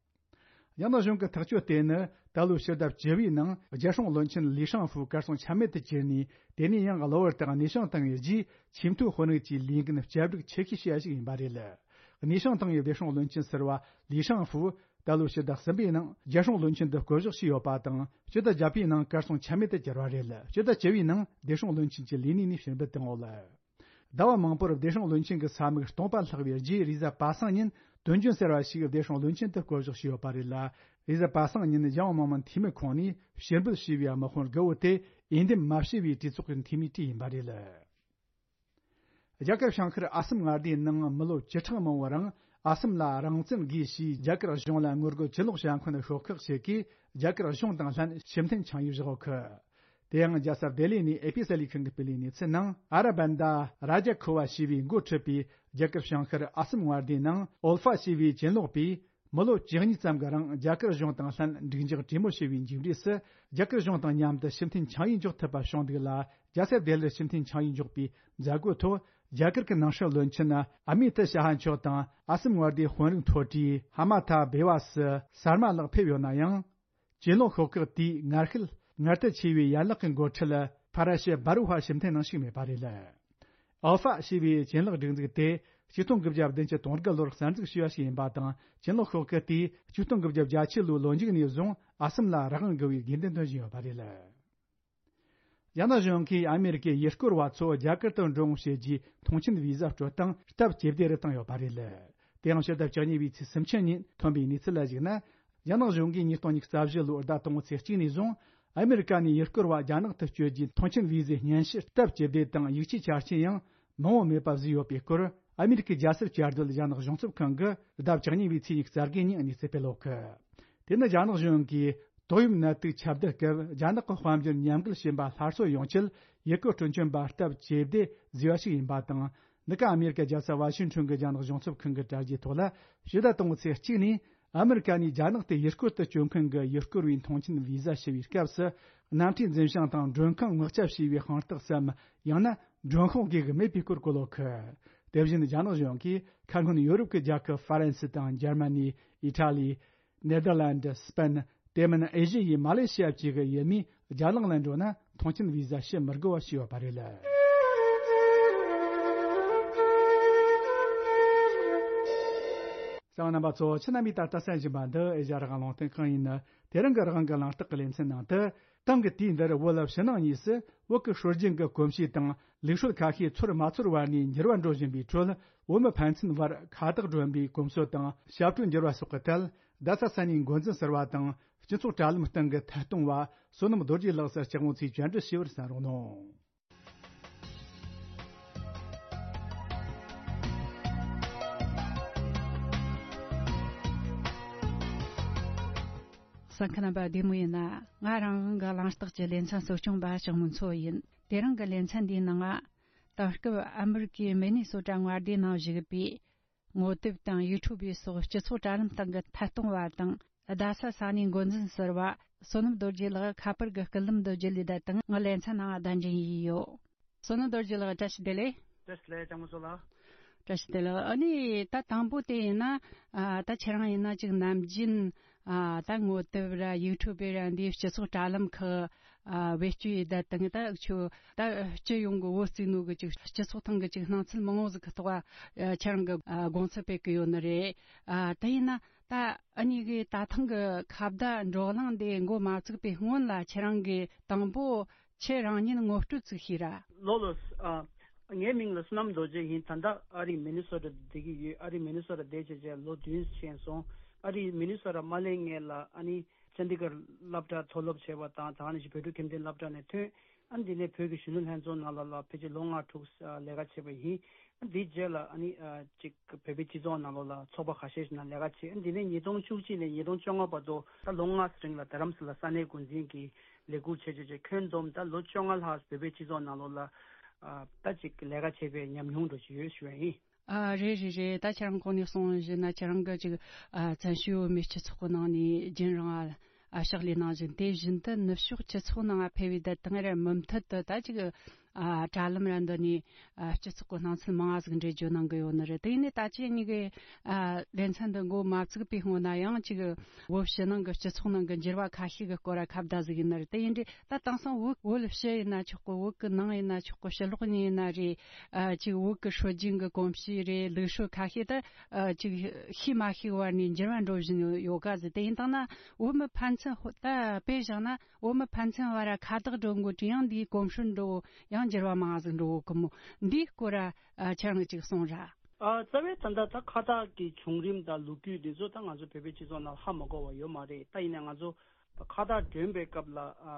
རྒྱ་ནག་གཞུང་གི་ཐག་གཅོད་དེ་ནི་ད་ལོའི་ཕྱི་ཟླ་བཅུ་བའི་ནང་རྒྱལ་སྲུང་བློན་ཆེན་ལི་ཧྲང་ཧྥུ་གར་སོང་ཆ་མེད་དུ་གྱུར་ནས། དེ་ནས་ཡང་གློ་བུར་དུ་གནས་ཆིངས་བཏང་བའི་རྗེས། ཆེས་མཐོའི་དཔོན་རིགས་ཀྱི་ལས་འགན་བསྐྱར་སྒྲིག་ཆེ་ཤོས་བྱས་པ་ཞིག་ཡིན་པ་རེད། གནས་ཆིངས་བཏང་བའི་བདེ་སྲུང་བློན་ཆེན་ཟུར་པ་ལི་ཧྲང་ཧྥུ། ད་ལོའི་ཕྱི་ཟླ་གསུམ་པའི་ནང་རྒྱལ་སྲུང་བློན་ཆེན་དུ་བསྐོ་གཞག་བྱས་ཡོད་པ་དང་། ཕྱི་ཟླ་བརྒྱད་པའི་ནང་གར་སོང་ཆ་མེད་དུ་གྱུར་བ་རེད། ཕྱི་ཟླ་བཅུ་བའི་ནང་བདེ་སྲུང་བློན་ཆེན་གྱི་ལས་གནས་ནས་ཕྱིར་འབུད་བཏང་ཡོད། ཟླ་བ་མང་པོར་བདེ་སྲུང་བློན་ཆེན་གྱི་ས་མིག་སྟོང་པ་ལྷག་པའི་རྗེས། རེས་གཟའ་པ་སངས་ཉིན་དོན་རྐྱེན་ཟེར་བ་ཞིག་བདེ་སྲུང་བློན་ཆེན་དུ་བསྐོ་གཞག་བྱས་ཡོད་པ་རེད་ལ། རེས་གཟའ་པ་སངས་ཉིན་གཞུང་མང་མང་འཐུས་མི་ཁོངས་ནས་ཕྱིར་འབུད་བྱས་པའི་དམག་དཔོན་དགུ་བོ་དེ་འོས་འདེམས་མ་བྱས་པའི་གྲོས་ཚོགས་ཀྱི་འཐུས་མིའི་གྲས་ཡིན་པ་རེད། རྒྱ་གར་བྱང་ཤར་ཨ་སམ་མངའ་སྡེའི་ནང་མི་ལོ་བཅུ་ཕྲག་མང་བོའི་རིང་ཨ་སམ་ལ་རང་བཙན་དགོས་ཞེས་རྒྱ་གར་གཞུང་ལ་ངོ་རྒོལ་གྱེན་ལོག་བྱ་མཁན་ཤོག་ཁག་ཞིག་གིས་རྒྱ་གར་གཞུང་དང་ལྷན་ཕྱིར་འཐེན་ཆིངས་ཡིག་བཞག་ཡོད་གི། དེ་ཡང་རྒྱལ་ས་ལྡི་ལི་ནས་ཨེ་པི་གསར་ལས་ཁང་གིས་སྤེལ་བའི་གནས་ཚུལ་ནང་། ཨ་ར་བན་ད་ར་ཇ་ཁོ་བ་ཞེས་པའི་འགོ་ཁྲིད་པའི་རྒྱ་གར་བྱང་ཤར་ཨ་སམ་མངའ་སྡེའི་ནང་ཨོལ་ཧྥ་ཞེས་པའི་གྱེན་ལོག་པས། མི་ལོ་བཅུ་གཉིས་ཙམ་གྱི་རིང་རྒྱ་གར་གཞུང་དང་ལྷན་འགྲིག་འཇགས་གྲོས་མོལ་བྱས་པའི་མཇུག་འབྲས་སུ། རྒྱ་གར་གཞུང་དང་མཉམ་དུ་ཕྱིར་འཐེན་ཆིངས་ཡིག་འཇོག་ཐུབ་པ་བྱུང་འདུག་ལ། རྒྱལ་ས་ལྡི་ལིར་ཕྱིར་འཐེན་ཆིངས་ཡིག་འཇོག་པའི་མཛད་སྒོའི་ཐོག་རྒྱ་གར་གྱི་ནང་སྲིད་བློན་ཆེན་ཨ་མི་ཏི་ཤ་ཧ་མཆོག་དང་། ཨ་སམ་མངའ་སྡེའི་དཔོན་རིགས་མཐོ་གྲས་ཧ་མ་ཐ་བྷེ་ཝ་སི་སར་མ་ལགས་ཕེབས་ཡོད་ན་ཡང་། གྱེན་ལོག་ཤོག་ཁག་དེའི་ངར་ཤུལ་ངར་ལྟ་ཆེ་བའི་ཡན་ལག་གི་འགོ་ཁྲིད་ཕ་ར་ཤི་བྷ་རུ་ཧ་ཕྱིར་འཐེན་གནང་ཞིག་མེད་པ་རེད། ཨལ་ཧྥ་ཞེས་པའི་ཆེད་ལས་སྒྲིག་འཛུགས་དེ་ཆིག་སྟོང་དགུ་བརྒྱ་བདུན་ཅུ་དོན་དགུ་ལོར་གསར་འཛུགས་བྱས་པ་ཞིག་ཡིན་པ་དང་། ཆེད་ལས་ཤོག་ཁག་དེས་ཆིག་སྟོང་དགུ་བརྒྱ་བརྒྱད་ཅུ་ལོའི་ལོ་མཇུག་ནས་བཟུང་ཨ་སམ་ལ་རང་དབང་དགོས་པའི་དགོས་འདུན་བཏོན་བཞིན་ཡོད་པ་རེད། རྒྱ་ནག་གཞུང་གིས་ཨ་མེ་རི་ཀའི་ཡུལ་སྐོར་བ་ཚོ་རྒྱ་གར་དུ་འགྲོ་འོང་བྱེད་རྒྱུའི་ཐོངས་མཆན་བི་ཟ་སྤྲོད་སྟངས་སྟབས་ཇེ་བདེ་རུ་བཏང་ཡོད་པ་རེད། དེའང་ཕྱི་ཟླ་བཅུ་གཉིས་པའི་ཚེས་སུམ་ཅུ་ཉིན་ཐོན་པའི་གནས་ཚུལ་ལ་གཞིགས་ན། རྒྱ་ནག་གཞུང་གིས་ཉིས་སྟོང་ཉི་ཤུ་རྩ་བཞི་ལོའི་ཟླ་དང་པོའི་ཚེས་གཅིག་ནས་བཟུང་ཨ་མེ་རི་ཀ་ནས་ཡུལ་སྐོར་བ་རྒྱ་ནག་ཏུ་བསྐྱོད་རྒྱུའི་ཐོངས་མཆན་བི་ཟའི་སྙན་ཞུ་སྟབས་ཇེ་བདེ་དང་། ཡིག་ཆའི་ཆ་རྐྱེན་ཡང་མང་བོ་མེད་པ་བཟོས་ཡོད་པའི་སྐོར། ཨ་མེ་རི་ཀའི་རྒྱལ་སྲིད་བཅའ་སྡོད་རྒྱ་ནག་གཞུང་ཚབ་ཁང་གིས་ཟླ་བཅུ་གཉིས་པའི་ཚེས་ཉི་ཤུ་རྩ་དགུ་ཉིན་གནས་ཚུལ་སྤེལ་ཡོད་གི། དེ་ནི་རྒྱ་ནག་གཞུང་གིས་ཏོག་དབྱིབས་ནད་དུག་ཁྱབ་གདལ་སྐབས་རྒྱ་ནག་གི་དཔལ་འབྱོར་ཉམས་རྒུད་ཕྱིན་པ་སླར་གསོ་ཡོང་ཆེད་ཡུལ་སྐོར་སྤྲོ་འཆམ་པ་སྟབས་ཇེ་བདེ་བཟོས་པ་ཞིག་ཡིན་པ་དང་། འདི་ག་ཨ་མེ་རི་ཀའི་རྒྱལ་ས་ཝ་ཤིང་ཊོན་གྱི་རྒྱ་ནག་གཞུང་ཚབ་ཁང་གི་དྲ་རྒྱའི་ཐོག་ལ་ཕྱི་ཟླ་དང་པོའི་ཚེས་གཅིག་ནས་ཨ་མེ་རི་ཀ་ནས་རྒྱ་ནག་ཏུ་ཡུལ་སྐོར་དུ་བསྐྱོད་མཁན་གྱི་ཡུལ་སྐོར་བའི་ཐོངས་མཆན་བི་ཟ་ཞུ་བའི་སྐབས་སུ། གནམ་གྲུའི་འཛིན་བྱང་དང་མགྲོན་ཁང་ངོ་ཚབ་བྱས་པའི་དཔང་རྟགས་སམ། ཡང་ན་མགྲོན་ཁང་དགོས་ཀྱི་མེད་པའི་སྐོར་བཀོད་ཡོད་གི། དེ་བཞིན་རྒྱ་ནག་གཞུང་གིས་ཁ་སྔོན་ཡོ་རོབ་ཀྱི་རྒྱལ་ཁབ་ཧྥ་རན་སི་དང་འཇར་མ་ནི། ཨི་ཊ་ལི། ནེ་དར་ལན་ཌི། སི་པེན། དེ་མིན་ཨེ་ཤི་ཡའི་མ་ལེ་ཤི་ཡ་བཅས་ཀྱི་ཡུལ་མིས་རྒྱ་ནག་ལ་འགྲོ་ན་ཐོངས་མཆན་བི་ཟ་ཞུ་མི་དགོས་པ་ཞིག་ཡོད་པ་རེད། གསན་པ་རྣམ་པ་ཚོ། ཁྱེད་རྣམ་པས་ད་ལྟ་གསན་བཞིན་པ་འདི་ཨེ་ཤ་ཡ་རང་དབང་རླུང་འཕྲིན་ཁང་ཡིན། དེ་རིང་གི་རང་དབང་གི་གླེང་སྟེགས་ཀྱི་ལེ་ཚན་ནང་དུ། ཏང་གི་དུས་འདིར་བོད་ཕྱི་ནང་གཉིས་སུ་བོད་ཀྱི་སྲོལ་རྒྱུན་གྱི་གོམས་གཤིས་དང་ལུགས་སྲོལ་ཁ་ཤས་ཚོར་མ་ཚོར་བར་ནས་འགྱུར་བ་འགྲོ་བཞིན་པའི་ཁྲོད། བོད་མི་ཕན་ཚུན་བར་ཁ་བརྡ་སྒྲོན་པའི་གོམས་སྲོལ་དང་ཞབས་བྲོ་འགྱུར་བ་སོགས་ཀྱི་ཐད། རྡ་ས་ས་གནས་འགོ་འཛིན་ཟུར་པ་དང་སྤྱི་ཚོགས་དྲ་ལམ་སྟེང་གི་ཐད་གཏོང་བ། བསོད་ནམས་རྡོ་རྗེ་ལགས་སུ་ལྕགས་མོ་ཚོས་བཅར་འདྲི་ཞུས་པར་གསན་རོགས་གནང་། གསན་མཁན་རྣམ་པ་བདེ་མོ་ཡིན་ན། ང་རང་དབང་གི་གླེང་སྟེགས་ཀྱི་ལེ་ཚན་གཙོ་སྐྱོང་པ་ལྕགས་མོ་མཚོ་ཡིན། དེ་རིང་གི་ལེ་ཚན་འདིའི་ནང་ང་། ད་སྐབས་ཨ་མི་རི་ཀའི་མི་ནི་སོ་ཊ་མངའ་སྡེའི་ནང་བཞུགས་པའི་ངོ་དེབ་དང་ཡུ་ཊུབ་སོགས་སྤྱི་ཚོགས་དྲ་ལམ་སྟེང་གི་ཐད་གཏོང་བ་དང་། རྡ་ས་ས་གནས་འགོ་འཛིན་ཟུར་པ་བསོད་ནམས་རྡོ་རྗེ་ལགས་ཁ་པར་གྱི་སྐུད་ལམ་དུ་བརྒྱུད་ལས་བསྡད་དང་། ང་ལེ་ཚན་ནང་བདམས་ཐོན་ཡས་ཡོད། བསོད་ནམས་རྡོ་རྗེ་ལགས། བཀྲ་ཤིས་བདེ་ལེགས། བཀྲ་ཤིས་བདེ་ལེགས། ལྕགས་མོ་མཚོ་ལགས། བཀྲ་ཤིས་བདེ་ལེགས། ཨ་ནི་ད་དང་པོ་དེ་ཡིན་ན། ཨ་ད་ཁྱེད་རང་ཡིན་ན་ཅིག་ནམ་རྒྱུན། ཨ་ད་ངོ་དེབ་ར་ཡུ་ཊུབ་ར་འདིའི་སྤྱི་ཚོགས་དྲ་ལམ་ཁག་ཨ་བེད་སྤྱོད་ཡས་བསྡད་དང་། ད་ཁྱོད་ད་སྤྱི་ཡོངས་ཀྱི་བོད་བཙུགས་ནོ་གི་ཅིག་སྤྱི་ཚོགས་ཐོག་གི་ཅིག་སྣང་ཚུལ་མང་བོ་ཟིག་གི་ཐོག་ཨ་ཁྱེད་རང་གི་ཨ་དགོངས་ཚུལ་སྤེལ་གི་ཡོད་ནི་རེད། ཨ་དེ་ཡིན་ན་ད་ཨ་ནི་གི་ད་ཐེངས་གི་ཁ་བརྡ་བགྲོ་གླེང་འདི་འགོ་མ་བཙུགས་པའི་སྔོན་ལ་ཁྱེད་རང་གི་དང་པོ་ཁྱེད་རང་ཉིད་ངོ་སྤྲོད་ཅིག་ཞུས་ར། ལོ་ལོ། ཨ། ངའི་མིང་ལ་བསོད་ནམས་རྡོ་རྗེ་ཡིན། ད་ལྟ་ཨ་རིའི་མི་ནི་སོ་ཊ་བསྡད་ཀྱི་ཡོད། ཨ་རིའི་མི་ནི་སོ་ཊ་བསྡད་བྱས་བྱས་ལོ་བདུན་ཕྱིན་སོང་། ཨ་རིའི་མི་ནི་སོ་ཊ་མ་སླེབས་སྔོན་ལ་ཨ་ནི་ཅན་དི་གར་སློབ་གྲྭ་མཐོ་སློབ་བྱས་པ་དང་། ད་ག་ནང་བཞིན་བོད་ཕྲུག་ཁྱིམ་སྡེ་སློབ་གྲྭ་ནས་ཐོན། ཨ་ནི་དེ་ནས་བོད་ཀྱི་གཞོན་ནུ་ལྷན་ཚོགས་ནང་ལོགས་ལ་ཕལ་ཆེར་ལོ་ལྔ་དྲུག་ལས་ཀ་བྱས་པ་ཡིན། ཨ་ནི་དེའི་རྗེས་ལ་ཨ་ནི་ཨ་ཅིག་བོད་པའི་སྤྱི་ཚོགས་ནང་ལོགས་ལ་ཚོགས་པ་ཁ་ཤས་ཤིག་ནང་ལས་ཀ་བྱས། ཨ་ནི་དེ་ནས་ཉིས་སྟོང་བཅུ་གཅིག་ནས་ཉིས་སྟོང་བཅོ་ལྔ་བར་དུ་ད་ལོ་ལྔ་རིང་ལ་རྡ་རམ་ས་ལ་ས་གནས་འགོ་འཛིན་གྱི་ལས་ཁུར་བྱས་བྱས་བྱས། ཁྱོན་བསྡོམས་ད་ལོ་བཅོ་ལྔ་ལྷག་བོད་པའི་སྤྱི་ཚོགས་ནང་ལོགས་ལ་ཨ་ད་ཅིག་ལས་ཀ་བྱས་པའི་ཉམས་མྱོང་འདྲ་ཅིག་ཡོད་ཞུ་བ་ཡིན། ཨ་རེད་རེད་རེད། ད་ཁྱེད་རང་གོང་ནས་གསུངས་བཞིན་ན་ཁྱེད་རང་གི་ཅིག་ཨ་བཙན་བྱོལ་བོད་མིའི་སྤྱི་ཚོགས་ཀྱི་ནང་ནས་རྒྱུན་རིང་ཨ་ཕྱག་ལས་གནང་བཞིན། དེ་བཞིན་དུ་ནུབ་ཕྱོགས་སྤྱི་ཚོགས་ནང་ཕེབས་པའི་དུས་དང་རེ་མུ་མཐུད་དུ་ད་ཅིག་ཨ་དྲ་ལམ་ར་འདི་ནས་ཨ་སྤྱི་ཚོགས་ཀྱི་སྣང་ཚུལ་མང་ང་ཟིག་འགྲེལ་བརྗོད་གནང་གི་ཡོད་ནི་རེད། དེ་ཡིན་ནའི་ད་ཅི་གཉིས་ཀའི་ཨ་ལེ་ཚན་འདི་འགོ་མ་བཙུགས་པའི་སྔོན་ན་ཡང་ཅིག་བོད་ཕྱི་ནང་གི་སྤྱི་ཚོགས་ནང་གི་འགྱུར་བ་ཁ་ཤས་ཀྱི་སྐོར་ལ་ཁ་བརྡ་ཟིག་ཡིན་ནི་རེད། དེ་ཡིན་དུས་ད་དེང་སང་བོད་བོད་ཕྱི་ཡིན་ན་ཆོག་གི། བོད་ཀྱི་ནང་ཡིན་ན་ཆོག་གི། ཕྱི་ལོགས་ནས་ཡིན་ན་རེད། ཨ་ཅིག་བོད་ཀྱི་སྲོལ་རྒྱུན་གྱི་གོམས་གཤིས་རེད། ལུགས་སྲོལ་ཁ་ཤས་ད་ཨ་ཅིག་ཤེས་མ་ཤེས་བར་ནས་འགྱུར་བ་འགྲོ་བཞིན་ཡོད་ག་ཟེར། དེ་ཡིན་དང་ན་བོད་མི་ཕན་ཚུན་ཧོ་ད་དཔེ་བཞག་ན། བོད་མི་ཕན་ཚུན་བར་ཁ་བརྡ་འགྲོ་འགོ་དུས་ཡང་འདིའི་གོམས་སྲོལ་འགྲོ་ཡང་འགྱུར་བ་མང་ཟིག་འགྲོ་གི་མོ། འདིའི་སྐོར་ཨ་ཁྱེད་རང་གིས་ཅིག་གསུངས་ར། ཨ་རྩ་བའི་ད་ལྟ་ད་ཁ་བརྡ་གི་བྱུང་རིམ་དང་ལོ་རྒྱུས་འདི་ཚོ་ད་ང་ཚོ་བོད་པའི་སྤྱི་ཚོགས་ནང་ཧ་མ་གོ་བ་ཡོད་མ་རེད། ད་ཡིན་ན་ང་ཚོ་ཁ་བརྡ་སྒྲོན་པའི་སྐབས་ལ་ཨ་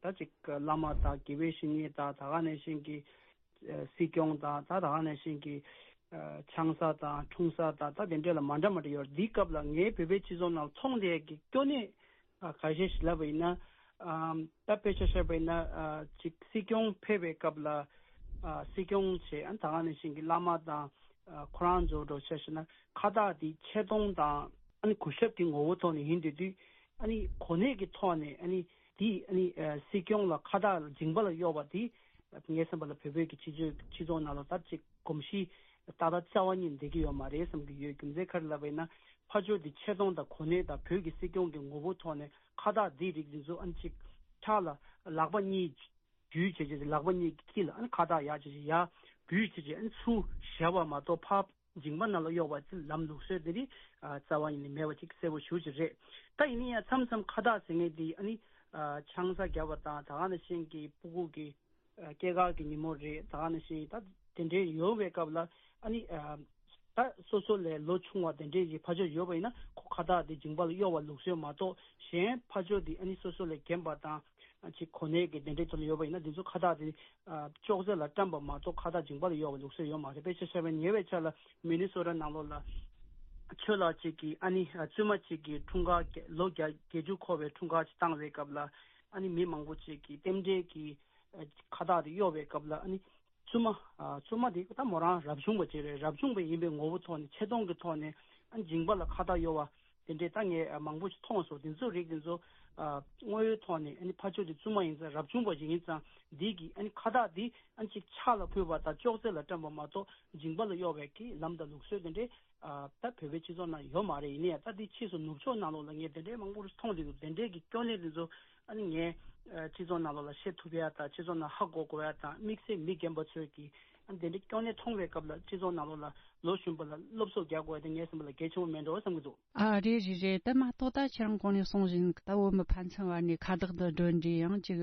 ད་ཅིག་བླ་མ་དང་དགེ་བའི་བཤེས་གཉེན་དང་། ད་ག་ནང་བཞིན་གྱི་ཨ་སྲིད་སྐྱོང་དང་། ད་ད་ག་ནང་བཞིན་གྱི་ཨ་ཆང་ས་དང་འཐུང་ས་དང་། ད་དེ་འདྲ་ལ་མ་འདྲ་མ་འདྲ་ཡོད་རེད། འདིའི་སྐབས་ལ་ངའི་བོད་པའི་སྤྱི་ཚོགས་ནང་མཐོང་བསྡད་ཀྱི་སྐྱོ་གནས་ཨ་ཁ་ཤས་ཤིག་ལབ་པ་ཡིན་ན། ཨམ་ད་དཔེ་ཆ་བཞག་པ་ཡིན་ན། ཨ་ཅིག་སྲིད་སྐྱོང་ཕེབས་པའི་སྐབས་ལ་ཨ་སྲིད་སྐྱོང་བྱས། ཨ་ད་ག་ནང་བཞིན་གྱི་བླ་མ་དང་ཨ་ཁོ་རང་ཚོ་འདྲ་བོ་ཆ་བཞག་ན་ཁ་བརྡ་འདི་ཆེ་མཐོང་དང་ཨ་ནི་གུས་ཞབས་ཀྱི་ངོ་བོ་ཐོག་ནས་ཡིན་དུས་དུས། ཨ་ནི་གོ་གནས་ཀྱི་ཐོག་ནས་ཨ་ནི་འདི་ཨ་ནི་ཨ་སྲིད་སྐྱོང་ལ་ཁ་བརྡ་མཇིང་པ་ལ་གཡོགས་པ་འདི། ངའི་བསམ་པ་ལ་བོད་བོད་ཀྱི་སྤྱི་ཚོགས་སྤྱི་ཚོགས་ནང་ལ་ད་ཅིག་གོམས་གཤིས་ཏག་ཏག་རྩ་བ་ཉིད་འདི་གི་ཡོད་མ་རེད་བསམ་གྱི་ཡོད། རྒྱུ་མཚན་ག་རེ་ལབ་པ་ཡིན་ན། ཕར་ཕྱོགས་འདི་ཆེ་མཐོང་དང་གོ་གནས་དང་བོད་ཀྱི་སྲིད་སྐྱོང་གི་ངོ་བོ་ཐོག་ནས་ཁ་བརྡ་འདི་རིགས་འདི་ཚོ་ཨ་ནི་ཅིག་ཕྱག་ལ་ལག་པ་གཉིས་འཇུས་བྱས་བྱས། ལག་པ་གཉིས་དཀྱིལ་ལ་ཨ་ནི་ཁ་བརྡ་ཡག་བྱས་བྱས། ཡ་ འབུད་བྱས་བྱས་ཨ་ནི་ཚུར་བཞག་པ་མ་གཏོགས་ཕར་མཇིང་པ་ནང་ལ་གཡོག་པ་ཅིག་ལམ་ལུགས་སྲོལ་དེ་རིགས་ཨ་རྩ་བ་ཉིད་ནས་མེད་པ་ཅིག་གསལ་པོ་ཞེ་པོ་ཅིག་རེད། ད་ཡིན་ན་ཡང་མཚམས་མཚམས་ཁ་བཏགས་ཟེར་མཁན་དེ་ཨ་ནི་ཨ་ཆང་ས་བརྒྱབ་པ་དང་ད་ག་ནང་བཞིན་གྱི་སྤུ་གུ་གི་ཨ་སྐྱེས་སྐར་གྱི་ཉིན་མོ་རེད། ད་ག་ནང་བཞིན་ད་དེ་འདྲའི་ཡོད་པའི་སྐབས་ལ་ཨ་ནི་ཨ་ད་སོ་སོ་ལས་ལོ་ཆུང་བ་དེ་འདྲའི་གི་ཕ་ཆོས་ཡོད་པ་ཡིན་ན་ཁོ་ཁ་བཏགས་དེ་མཇིང་པ་ལ་གཡོག་པ་ལུགས་སྲོལ་མ་གཏོགས་གཞན་ཕ་ཆོས་དེ་ཨ་ནི་སོ་སོ་ལས་རྒན་པ་དང་ཅིག་གོ་གནས་ཀྱི་དེ་འདྲའི་ཐོག་ལ་ཡོད་པ་ཡིན་ན་དེ་ཚོ་ཁ་བཏགས་དེ་ཨ་ཅོག་ཙེ་ལ་བཀྲམ་པ་མ་གཏོགས་ཁ་བཏགས་མཇིང་པ་ལ་གཡོག་པའི་ལུགས་སྲོལ་ཡོད་མ་རེད། དཔེ་ཆ་བཞག་པ་ཉེ་བའི་ཆར་ལ་མི་ནི་སོ་ཊ་ནང་ལོགས་ལ་ཆོས་ལགས་ཅིག་གིས་ཨ་ནི་ཨ་བཙུན་མ་ཅིག་གི་འཁྲུངས་སྐར་ལོ་བརྒྱད་བརྒྱད་ཅུ་འཁོར་བའི་འཁྲུངས་སྐར་ཅིག་བཏང་བའི་སྐབས་ལ་ཨ་ནི་མི་མང་པོ་ཅིག་གིས་རྟེན་འབྲེལ་གྱི་ཨ་ཁ་བཏགས་དེ་གཡོག་པའི་སྐབས་ལ་ཨ་ནི་བཙུན་མ་ཨ་བཙུན་མ་དེ་ད་མོ་རང་རབ་བྱུང་བ་ཅིག་རེད། རབ་བྱུང་བ་ཡིན་པའི་ངོ་བོ་ཐོག་ནས་ཆེ་མཐོང་གི་ཐོག་ནས་ཨ་ནི་མཇིང་པ་ལ་ཁ་བཏགས་གཡོག་པ། དེ་འདྲའི་ད་ངས་མང་པོ་ཞིག་མཐོང་སོང་། དེ་ཚོ་རིགས་དེ་ཚོ་ཨ་དངོས་ཡོད་ཐོག་ནས་ཨ་ནི་ཕ་ཆོས་དེ་བཙུན་མ་ཡིན་ཙང་རབ་བྱུང་བ་ཞིག་ཡིན་ཙང་འདི་གི་ཨ་ནི་ཁ་བཏགས་འདི་ཨ་ནི་ཅིག་ཕྱག་ལ་ཕུལ་བ་དང་ཅོག་ཙེ་ལ་བཀྲམ་པ་མ་གཏོགས་མཇིང་པ་ལ་གཡོག་པའི་གི་ལམ་དང་ལུགས་སྲོལ་དེ་འདྲའི་ཨ་ད་བོད་པའི་སྤྱི་ཚོགས་ནང་ཡོད་མ་རེད། ཡིན་ནའི་ད་འདི་ཕྱིས་སུ་ནུབ་ཕྱོགས་ནང་ལོགས་ལ་ངས་དེ་འདྲའི་མང་པོ་ཞིག་མཐོང་བསྡད་འདུག་དེ་འདྲའི་གི་སྐྱོན་གནད་དེ་ཚོ་ཨ་ནི་ངས་ཨ་སྤྱི་ཚོགས་ནང་ལོགས་ལ་བཤད་ཐུབ་ཡ་དང་སྤྱི་ཚོགས་ནང་ཧ་གོ་དགོས་ཡ་དང་དམིགས་བསལ་མི་རྒན་པ་ཚོས་ཀྱི་ཨ་ནི་དེ་འདྲའི་སྐྱོན་གནད་མཐོང་བའི་སྐབས་ལ་སྤྱི་ཚོགས་ནང་ལོགས་ལ་ལོ་གཞོན་པ་ལ་སློབ་གསོ་རྒྱག་དགོས་ཡ་དེ་ངའི་བསམ་པ་ལ་གལ་ཆེན་པོ་མེད་འགྲོ་བསམ་གྱི་འདུག་ཨ་རེད་རེད་རེད། ད་མ་གཏོགས་ད་ཁྱེད་རང་གོང་ནས་གསུངས་བཞིན་ད་བོད་མི་ཕན་ཚུན་བར་ནས་ཁ་བཏགས་འདི་སྒྲོན་འདྲ་ཡང་ཅིག་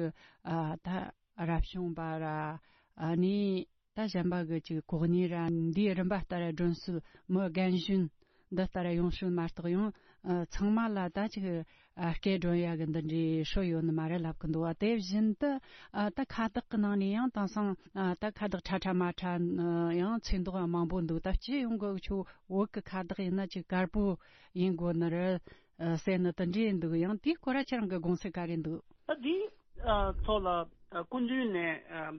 ཨ་ད་རབ་བྱུང་བ་ར་ཨ་ནི་ད་གཞན་པ་གི་ཅིག་གོ་གནས་ར་འདིའི་རིམ་པ་ལྟར་སྒྲོན་སྲོལ་མི་རྒན་གཞོན་འདི་ལྟར་ཡོང་སྲོལ་མ་གཏོགས་ཡང་ཨ་ཚང་མ་ལ་ད་ཅིག་ཨ་སྐད་སྒྲོན་ཡ་གི་འདི་འདྲའི་སྲོལ་ཡོད་ནི་མ་རེད་ལབ་གི་འདུག་བ། དེ་བཞིན་དུ་ཨ་ད་ཁ་བཏགས་གི་ནང་ནས་ཡང་དེང་སང་ཨ་ད་ཁ་བཏགས་ཁྲ་ཁྲ་མ་ཁྲ་ཡང་ཚོས་མདོག་མང་པོ་འདུག་ད་སྤྱི་ཡོངས་གི་ཆོ་བོད་ཀྱི་ཁ་བཏགས་ཡིན་ན་ཅིག་དཀར་པོ་ཡིན་དགོས་ནི་རེད་ཟེར་ནི་དེ་འདྲ་འདུག་ཡང་དེའི་སྐོར་ལ་ཁྱེད་རང་གི་དགོངས་ཚུལ་ག་རེ་འདུག་ཨ་དེའི་ཨ་ཐོག་ལ་ཨ་སྐུ་མདུན་ནས་ཨ་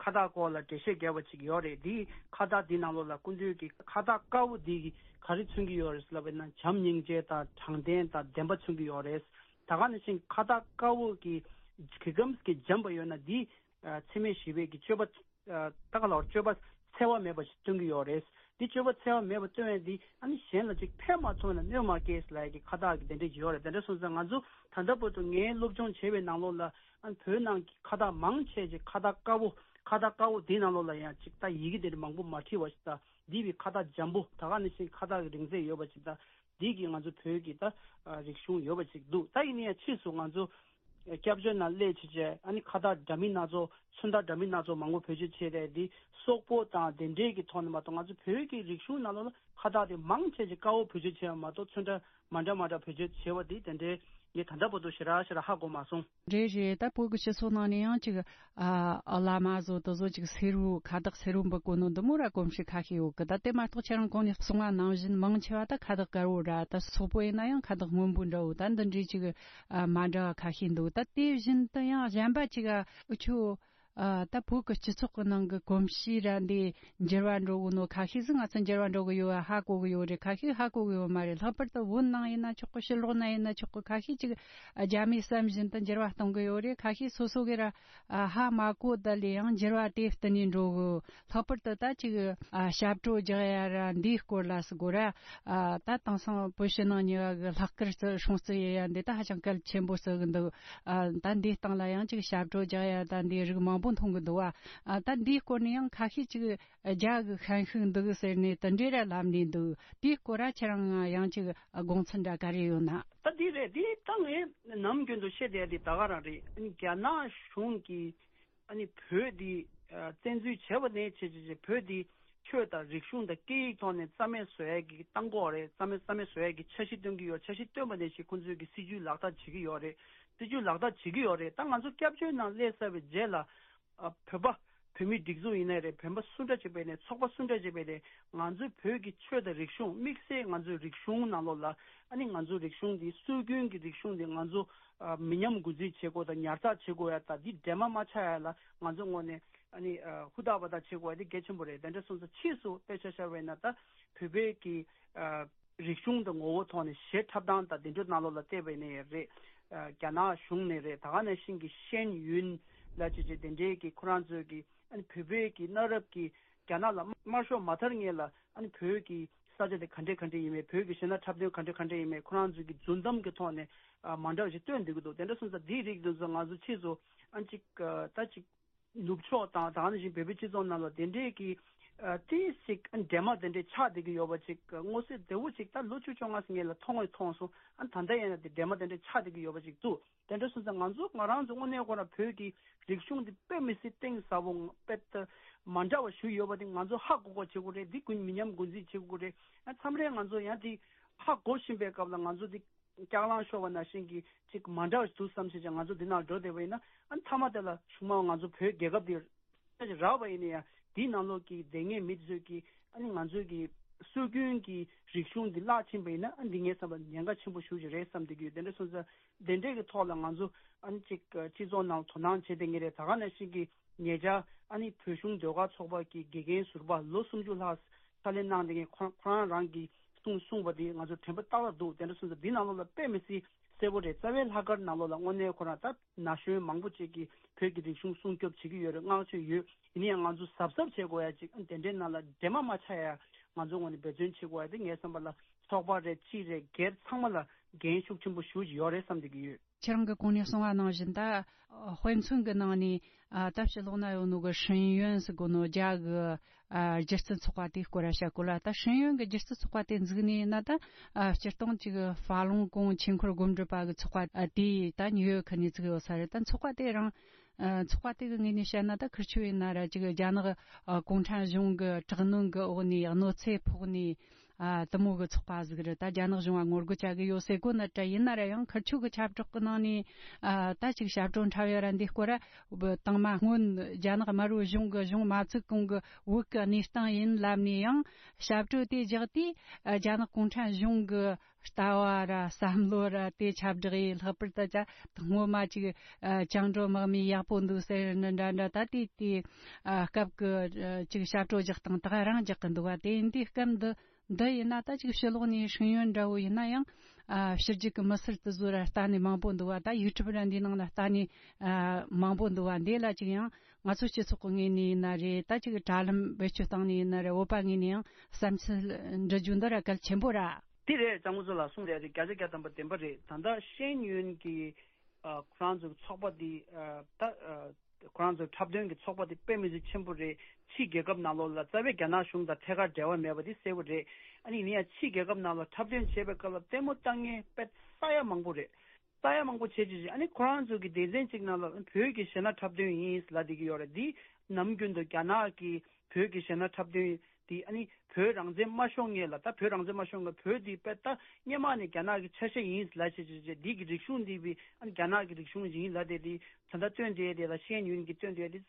ཁ་བཏགས་སྐོར་ལ་འགྲེལ་བཤད་བརྒྱབ་པ་ཅིག་ཡོད་རེད། དེའི་ཁ་བཏགས་དེའི་ནང་ལོགས་ལ་སྐུ་མདུན་གྱིས་ཁ་བཏགས་དཀར་པོ་དེ་གིས་ག་རེ་མཚོན་གྱི་ཡོད་རེད་ལབ་པ་ན་བྱམས་སྙིང་རྗེ་དང་དྲང་བདེན་དང་བདེན་པ་མཚོན་གྱི་ཡོད་རེད། ད་ག་ནང་བཞིན་ཁ་བཏགས་དཀར་པོ་གི་གི་གམ་གི་འཇམ་པ་ཡོད་ན་དེ་ཨ་འཚེ་མེད་ཞི་བའི་གི་སྤྱོད་པ། ཨ་ད་ག་ལ་བར་སྤྱོད་པ་འཚེ་བ་མེད་པ་ཞིག་སྟོན་གྱི་ཡོད་རེད། འདི་སྤྱོད་པ་འཚེ་བ་མེད་པ་སྟོན་ཡས་འདི་ཨ་ནི་གཞན་ལ་ཅིག་ཕན་མ་ཐོགས་ན་གནོད་མ་སྐྱེལ་ལབ་ཡས་ཀྱི་ཁ་བཏགས་ཀྱི་དེ་འདྲ་ཅིག་ཡོད་རེད། དེ་འདྲ་སོང་ཙང་ང་ཚོ་ད་ལྟ་བར་དུ་ངའི་སློབ་སྦྱོང་བྱས་པའི་ནང་ལོགས་ལ་ཨ་ནི་བོད་ནང་གི་ཁ་བཏགས་མང་ཆེ་ཅིག་ཁ་བཏགས་དཀར་པོ་ཁ་བཏགས་དཀར་པོ་འདིའི་ནང་ལོགས་ལ་ཡང་ཅིག་ད་ཡི་གེ་དེ་འདྲ་མང་པོ་མ་བྲིས་པ་ཞིག་དང་འདི་བའི་ཁ་བཏགས་འཇམ་པོ་ད་ག་ནང་བཞིན་ཁ་བཏགས་ཀྱི་རིང་ཚད་ཡོད་པ་ཅིག་དང་འདི་གི་ང་ཚོ་བོད་ཀྱི་ད་ཨ་རིག་གཞུང་ཡོད་པ་ཅིག་འདུག་ད་ཡིན་ན་ཡང་ཕྱིས་སུ་ང་ཚོ། སྐྱབས་བཅོལ་ནང་སླེབས་བྱས་བྱས་ཨ་ནི་ཁ་བཏགས་འདྲ་མིན་སྣ་ཚོགས་ཚོན་མདོག་འདྲ་མིན་སྣ་ཚོགས་མང་པོ་བེད་སྤྱོད་བྱས་ཏེ་འདི་སོག་པོ་དང་དེ་འདྲས་ཀྱི་ཐོག་ནས་མ་གཏོགས་ང་ཚོ་བོད་ཀྱི་རིག་གཞུང་ནང་ལོགས་ལ་ཁ་བཏགས་དེ་མང་ཆེ་ཆེ་དཀར་པོ་བེད་སྤྱོད་བྱས་པ་མ་གཏོགས་ཚོན་ཁྲ་མ་འདྲ་མ་འདྲ་བེད་སྤྱོད་བྱས་པ་དེ་དེ་འདྲས་ངས་ད་ལྟ་བར་དུ་ཞེ་དྲག་ཞེ་དྲག་ཧ་གོ་མ་སོང་། རེད་རེད། ད་བོད་ཀྱི་སྤྱི་ཚོགས་ནང་ནས་ཡང་ཅིག་ཨ་བླ་མ་བཟོ་དེ་ཚོ་ཅིག་སེར་བོ་ཁ་བཏགས་སེར་བོ་འབུལ་དགོས་ནོ་འདི་མོ་ར་གོམས་གཤིས་ཁ་ཤས་ཡོད་གི། ད་དེ་མ་གཏོགས་ཁྱེད་རང་གོང་ནས་གསུངས་པ་ནང་བཞིན་མང་ཆེ་བ་ད་ཁ་བཏགས་དཀར་བོ་ར་ད་སོག་པོ་ཡིན་ན་ཡང་ཁ་བཏགས་སྔོན་པོ་འདྲ་བོ་ད་འདི་འདྲའི་ཅིག་ཨ་མ་འདྲ་བ་ཁ་ཤས་འདུག་ད་དེ་བཞིན་དུ་ཡང་གཞན་པ་ཅིག་ཨ་འུ་ཆོ་ཨ་ད་བོད་ཀྱི་སྤྱི་ཚོགས་ཀྱི་ནང་གི་གོམས་གཤིས་ར་འདི་འགྱུར་བ་འགྲོ་གི་ནོ་ཁ་ཤས་ཟིག་ང་ཚོ་འགྱུར་བ་འགྲོ་གི་ཡོད་ཧ་གོ་གི་ཡོད་རེད། ཁ་ཤས་ཧ་གོ་གི་ཡོད་མ་རེད། ལྷག་པར་དུ་བོད་ནང་ཡིན་ན་ཆོག་གི། ཕྱི་ལོགས་ན་ཡིན་ན་ཆོག་གི། ཁ་ཤས་ཅིག་རྒྱ་མིའི་བསམ་བཞིན་དུ་འགྱུར་བ་གཏོང་གི་ཡོད་རེད། ཁ་ཤས་སོ་སོ་གི་ར་ཨ་ཧ་མ་གོ་ད་ལས་ཡང་འགྱུར་བ་དེ་བསྟུན་ནས་འགྲོ་གི། ལྷག་པར་དུ་ད་ཅིག་ཨ་ཞབས་བྲོ་རྒྱག་ཡ་ར་འདིའི་སྐོར་ལ་ཟེར་དགོས་ར། ཨ་ད་དེང་སང་བོད་ཕྱི་ནང་གཉིས་ཀ་གི་ལྷག་དཀར་བརྩི་སྲུང་བརྩི་ཡེ་ཡ་འདི་ད་ཧ་ཅང་གལ་ཆེན་པོ་བརྩི་གི་འདུག་ཨ་ད་འདིའི་སྟེང་ལ་ཡང་ཅིག་ཞབས་བྲོ་རྒྱག་ཡ་ད་འདིའི་རིགས་མང་པོ་མཐོང་གི་འདུག་བ། ཨ་ད་འདིའི་སྐོར་ནས་ཡང་ཁ་ཤས་ཅིག་རྒྱ་གི་ཤན་ཤུགས་འདུག་ཟེར་ནས་དེ་འདྲས་ར་ལབ་ནས་འདུག་དེའི་སྐོར་ར་ཁྱེད་རང་ཡང་ཅིག་དགོངས་ཚུལ་འདྲ་ག་རེ་ཡོད་ན། ད་འདི་རེད། འདི་ད་ངས་ནམ་རྒྱུན་དུ་བཤད་བསྡད་དེ་ད་ག་རང་རེད། རྒྱ་ནག་གཞུང་གིས་ཨ་ནི་བོད་འདི་ཨ་བཙན་འཛུལ་བྱས་པ་ནས་བྱས་བྱས་བྱས་བོད་འདི་ཆོས་དང་རིག་གཞུང་དང་སྐད་ཡིག་ཐོག་ནས་རྩ་མེད་བཟོ་ཡས་ཀྱི་བཏང་གི་ཡོད་རེད། རྩ་མེད་རྩ་མེད་བཟོ་ཡས་ཀྱི་འཆར་གཞི་བཏོན་གྱི་ཡོད། འཆར་གཞི་བཏོན་པ་ནས་བྱས་ཁོང་ཚོས་ཀྱི་སྲིད་ཇུས་ལག་བསྟར་བྱེད་ཀྱི་ཡོད་རེད། སྲིད་ཇུས་ལག་བསྟར་བྱེད་ཀྱི་ཡོད་རེད། ད་ང་ཚོ་སྐྱབས་བཅོལ་ནང་སླེབས་ཚར་བའི་རྗེས་ལ་ཨ་བོད་པ་བོད་མིའི་སྒྲིག་འཛུགས་ཡིན་ནའི་རེད། བོད་པ་སུ་འདྲ་ཅིག་བས་ནས་ཚོགས་པ་སུ་འདྲ་ཅིག་བས་ནས་ང་ཚོའི་བོད་ཀྱི་ཆོས་དང་རིག་གཞུང་དམིགས་བསལ་ང་ཚོའི་རིག་གཞུང་ནང་ལོགས་ལ་ཨ་ནི་ང་ཚོའི་རིག་གཞུང་འདི་སྲོལ་རྒྱུན་གྱི་རིག་གཞུང་འདི་ང་ཚོ་ཨ་མི་ཉམས་རྒུད་འཛིན་བྱེད་དགོས་དང་ཉར་ཚགས་བྱེད་དགོས་ཡ་ད་འདི་འདྲེས་མ་མ་ཆགས་ཡ་ལ་ང་ཚོ་ངོས་ནས་ཨ་ནི་ཨ་ཧུར་ཐག་པ་ཐག་བྱེད་དགོས་ཡ་འདི་གལ་ཆེན་པོ་རེད། དེ་འདྲ་སོང་ཙང་ཕྱིས་སུ་དཔེ་ཆ་བཞག་པ་ཡིན་ན་ད་བོད་པའི་གི་ཨ་རིག་གཞུང་དང་ངོ་བོ་ཐོག་ནས་གཞས་འཁྲབ་སྟངས་དང་དེ་འདྲ་ནང་ལོགས་ལ་བལྟས་པ་ཡིན་ན་ཡང་རེད། ཨ་རྒྱ་ནག་གཞུང་ནས་རེད། ད་ག་ནང་བཞིན་གྱི་ཤེན་ཡུན་ལ་བྱས་བྱས་དེ་འདྲའི་གི་ཁོ་རང་ཚོའི་གི་ཨ་ནི་བོད་པའི་གི་གནའ་རབས་ཀྱི་རྒྱ་ནག་ལ་དམར་ཤོག་མ་དར་སྔོན་ལ་ཨ་ནི་བོད་ཀྱི་ས་ཆ་དེ་ག་འདྲས་ག་འདྲས་ཡིན་མིན། བོད་ཀྱི་གཞས་སྣ་འཁྲབ་སྟོན་ག་འདྲས་ག་འདྲས་ཡིན་མིན་ཁོ་རང་ཚོའི་གི་རྫུན་གཏམ་གྱི་ཐོག་ནས་ཨ་མ་འདྲ་བ་ཞིག་སྟོན་བསྡད་ཀྱི་འདུག་དེ་འདྲ་སོང་ཙང་འདིའི་རིགས་འདི་ཚོ་ང་ཚོ་ཕྱིས་སུ་ཨ་ཅིག་ཨ་ད་ཅིག་ནུབ་ཕྱོགས་དང་ད་ག་ནང་བཞིན་བོད་པའི་སྤྱི་ཚོགས་ནང་ལ་དེ་འདྲས་ཀྱི་ ཨ་ཏི་ཞིག་ཨ་འདྲེ་མ་དེ་འདྲས་ཆགས་བསྡད་ཀྱི་ཡོད་པ་ཅིག་མངོན་གསལ་དོད་པོ་ཅིག་ད་ལོ་བཅུ་བཅོ་ལྔ་ཙམ་ངེད་ལ་མཐོང་བས་མཐོང་སོང་། ཨ་ད་ལྟ་ཡིན་ན་དེ་འདྲེ་མ་དེ་འདྲས་ཆགས་བསྡད་ཀྱི་ཡོད་པ་ཅིག་འདུག་དེ་འདྲ་སོང་ཙང་ང་ཚོ་ང་རང་ཚོ་དངོས་གནས་ཁོ་རང་བོད་ཀྱི་རིག་གཞུང་འདི་དཔེ་མི་སྲིད་གཏིང་ཟབ་པོ་དཔེ་ད་མ་འདྲ་བ་ཞིག་ཡོད་པ་དེ་ང་ཚོ་ཧ་གོ་གོ་བྱེད་དགོས་རེད། འདི་ཀུན་མི་ཉམས་འགོ་འཛིན་བྱེད་དགོས་རེད། ཨ་མཚམས་རེ་ང་ཚོ་ཡང་དེ་ཧ་གོ་བཞིན་པའི་སྐབས་ལ་ང་ཚོ་འདི་སྐྱག་ལང་ཤོར་བ་ནང་བཞིན་གྱི་ཅིག་མ་འདྲ་བ་ཞིག་འདུག་བསམ་བྱས་ཀྱང་ང་ཚོ་འདི་ནང་འགྲོ་བསྡད་པ་ཡིན་ན། ཨ་མཐའ་མ་དེ་ལ་གཞུག་མ་ང་ཚོ་བོད་རྒྱལ་ཁབ་འདི་རག་པ་ཡིན་ན་ཡང་དེའི་ནང་ལོགས་ཀྱི་སྡོད་མཁན་མི་དེ་ཚོས་ཀྱིས་ཨ་ནི་ང་ཚོའི་གི་སྲོལ་རྒྱུན་གྱི་རིག་གཞུང་འདི་བརླག་ཕྱིན་པ་ཡིན་ན། ཨ་འདི་ངས་བསམ་པ་ཉེན་ཁ་ཆེན་པོ་ཞེ་པོ་ཅིག་རེད་བསམ་བསྡད་ཀྱི་ཡོད། དེ་འདྲ་སོང་ཙང་དེ་འདྲའི་གི་ཐོག་ལ་ང་ཚོ་ཨ་ནི་ཅིག་སྤྱི་ཚོགས་ནང་དོ་སྣང་བྱེད་བསྡད་མཁན་རེད། ད་ག་ནང་བཞིན་གྱི་ཉེ་ཆར་ཨ་ནི་བོད་གཞུང་ཟློས་གར་ཚོགས་པ་གི་དགེ་རྒན་ཟུར་པ་ལོ་སུམ་ཅུ་ལྷག་ཕྱག་ལས་གནང་བསྡད་མཁན་ཁོ་ཁོ་རང་རང་གིས་གསུངས་གསུངས་པ་དེ་ང་ཚོ་དྲན་པ་ཏག་ཏག་འདུག་དེ་འདྲ་སོང་ཙང་འདི་ནང་ལོགས་ལ་དཔེ་མི་སྲིད་གསལ་པོ་རེད། རྩ་བའི་ལྷག་དཀར་ནང་ལོགས་ལ་དངོས་གནས་ཁོ་རང་ད་ན་གཞོན་མང་པོ་ཅིག་གིས་བོད་ཀྱི་རིག་གཞུང་སྲུང་སྐྱོབ་བྱེད་ཀྱི་ཡོད་རེད། བསྔགས་བརྗོད་ཡོད། ཡིན་ན་ཡང་ང་ཚོ་གཟབ་གཟབ་བྱེད་དགོས་ཡ་ཅིག་དེ་འདྲའི་ནང་ལ་འདྲེས་མ་མ་ཆགས་ཡ་ང་ཚོ་ངོས་ནས་འབད་བརྩོན་བྱེད་དགོས་ཡ་དེ་ངའི་བསམ་པ་ལ་ཚོགས་པ་རེད། སྤྱི་རེད། སྒེར་ཚང་མ་ལ་འགན་ཤུགས་ཆེན་པོ་ཞེ་པོ་ཅིག་ཡོད་རེད་བསམ་བསྡད་ཀྱི་ཡོད། ཁྱེད་རང་གིས་གོང་ནས་གསུངས་པ་ནང་བཞིན་ད་དཔེ་མཚོན་གྱི་ནང་ནས་ཨ་ད་ཕྱི་ལོགས་ན་ཡོད་ནོ་གི་ཧྲིན་ཡོན་ཟེར་གོ་ནོ་རྒྱ་གི་ཨ་སྒྱུ་རྩལ་ཚོགས་པ་དེའི་སྐོར་ར་བཤད་གོ་ལ། ད་ཧྲིན་ཡོན་གྱི་སྒྱུ་རྩལ་ཚོགས་པ་དེ་འཛུགས་ནས་ཡིན་ན་ད་ཨ་སྤྱིར་བཏང་ཅིག་ཧྥ་ལུང་ཀུང་ཆོས་འཁོར་སྒོམ་སྒྲུབ་པ་གི་ཚོགས་པ་ཨ་དེ་ད་ཉིའུ་ཡོག་ཁུལ་ནས་བཙུགས་ཡོད་ས་རེད། ད་ཚོགས་པ་དེ་རང་ཨ་ཚོགས་པ་དེ་གི་ངོས་ནས་བཤད་ན་ད་ཁིར་ཆོ་ཡིན་ན་ར་ཅིག་རྒྱ་ནག་ཨ་གུང་ཁྲན་གཞུང་གི་དྲག་གནོན་གི་འོག་ནས་གནོད་འཚེ་ཕོག་ནས། ཨ་དེ་མོ་གི་ཚོགས་པ་ཟིག་རེད། ད་རྒྱ་ནག་གཞུང་ང་ངོ་རྒོལ་བྱ་གི་ཡོད་ཟེར་གོ་ནི་འདྲ་ཡིན་ན་ར་ཡང་ཁིར་ཆོ་གི་ཁྱབ་བསྒྲགས་གི་ནང་ནས་ཨ་ད་ཅིག་ཞབས་བྲོ་འཁྲབ་ཡ་ར་འདི་སྐོར་ར་དང་མ་སྔོན་རྒྱ་ནག་དམར་པོའི་གཞུང་གི་གཞུང་མ་བཙུགས་གོང་གི་བོད་གི་གནས་སྟངས་ཡིན་ལབ་ནས་ཡང་ཞབས་བྲོ་དེ་རྒྱག་དུས་ཨ་རྒྱ་ནག་གུང་ཁྲན་གཞུང་གི་ལྟ་བ་ར་བསམ་བློ་ར་དེ་ཁྱབ་བསྒྲགས་ཡིན། ལྷག་པར་དུ་ཅ་སྔོན་མ་ཅིག་ཨ་བཅིངས་འགྲོལ་དམག་མི་ཡག་པོ་འདུག་ཟེར་ནི་འདྲ་འདྲ། ད་དེ་དེ་ཨ་སྐབས་གི་ཨ་ཅིག་ཞབས་བྲོ་རྒྱག་སྟངས་དག་རང་རྒྱག་གི་འདུག་བ། དེ་འདི་སྐབས་འདི། འདི་ཡིན་ན་ད་ཅིག་ཕྱི་ལོགས་ནས་ཧྲིན་ཡོན་འདྲ་བོ་ཡིན་ན་ཡང་ཨ་ཕྱི་རྒྱལ་གྱི་མི་སེར་དེ་ཚོ་ར་ལྟ་ནས་མང་པོ་འདུག་བ། ད་ཡུ་ཊུབ་ར་འདི་ནང་ལ་ལྟ་ནས་ཨ་མང་པོ་འདུག་བ། འདི་ལ་ཅིག་ཡང་ང་ཚོ་སྤྱི་ཚོགས་ཀྱི་ངོས་ནས་ཡིན་ན་རེད། ད་ཅིག་དྲ་ལམ་བེད་སྤྱོད་བཏང་ནས་ཡིན་ན་རེད། བོད་པ་ངོས་ནས་ཡང་བསམ་ཚུལ་འདྲི་རྒྱུ་འདི་ར་གལ་ཆེན་པོ་ར། དེ་རེད། གཙང་པོ་ཚོ་ལ་གསུངས་རེད་རེད། བརྒྱ་ཆ་བརྒྱ་ཐམ་པ་བདེན་པ་རེད། ད་ལྟ་ཤེས་ཡོན་གྱི་ཨ་ཁོ་རང་ཚོའི་ཚོགས་པ་འདི་ཨ་ད་ཨ་ཁོ་རང་ཚོའི་འཁྲབ་སྟོན་གྱི་ཚོགས་པ་དེ་དཔེ་མི་སྲིད་ཆེན་པོ་རེད། ཕྱིའི་རྒྱལ་ཁབ་ནང་ལོགས་ལ་རྩ་བའི་རྒྱ་ནག་གཞུང་དང་ཐད་ཀར་འབྲེལ་བ་མེད་པ་དེ་གསལ་པོ་རེད། ཨ་ནི་ཡིན་ཡང་ཕྱིའི་རྒྱལ་ཁབ་ནང་ལ་འཁྲབ་སྟོན་བྱེད་པའི་སྐབས་ལ་ལྟད་མོ་ལྟ་མཁན་དཔེ་ས་ཡ་མང་པོ་རེད། ས་ཡ་མང་པོ་བྱེད་ཀྱི་རེད། ཨ་ནི་ཁོ་རང་ཚོ་གི་སྡེ་ཚན་གཅིག་ནང་ལ་བོད་ཀྱི་གཞས་སྣ་འཁྲབ་སྟོན་ཡིན་ལབ་བསྡད་ཀྱི་ཡོད་རེད། འདི་ནམ་རྒྱུན་དུ་རྒྱ་ནག་གི་བོད་ཀྱི་གཞས་སྣ་འཁྲབ་སྟོན་དེ་ཨ་ནི་བོད་རང་བཙན་མ་ཤོར་སྔོན་ལ། ད་བོད་རང་བཙན་མ་ཤོར་སྔོན་བོད་དེ་དཔེ་ད་སྔོན་མ་ནས་རྒྱ་ནག་གི་ཆ་ཤས་ཡིན་ལབ་བྱས་བྱས་བྱས་འདི་གི་རིག་གཞུང་འདི་བི་ཨ་ནི་རྒྱ་ནག་གི་རིག་གཞུང་ཡིན་ལབ་བསྡད་དེ། ད་ལྟ་སྟོན་བསྡད་དེ་ལ་ཤེས་ཡོན་གྱི་སྟོན་བསྡད་དེ་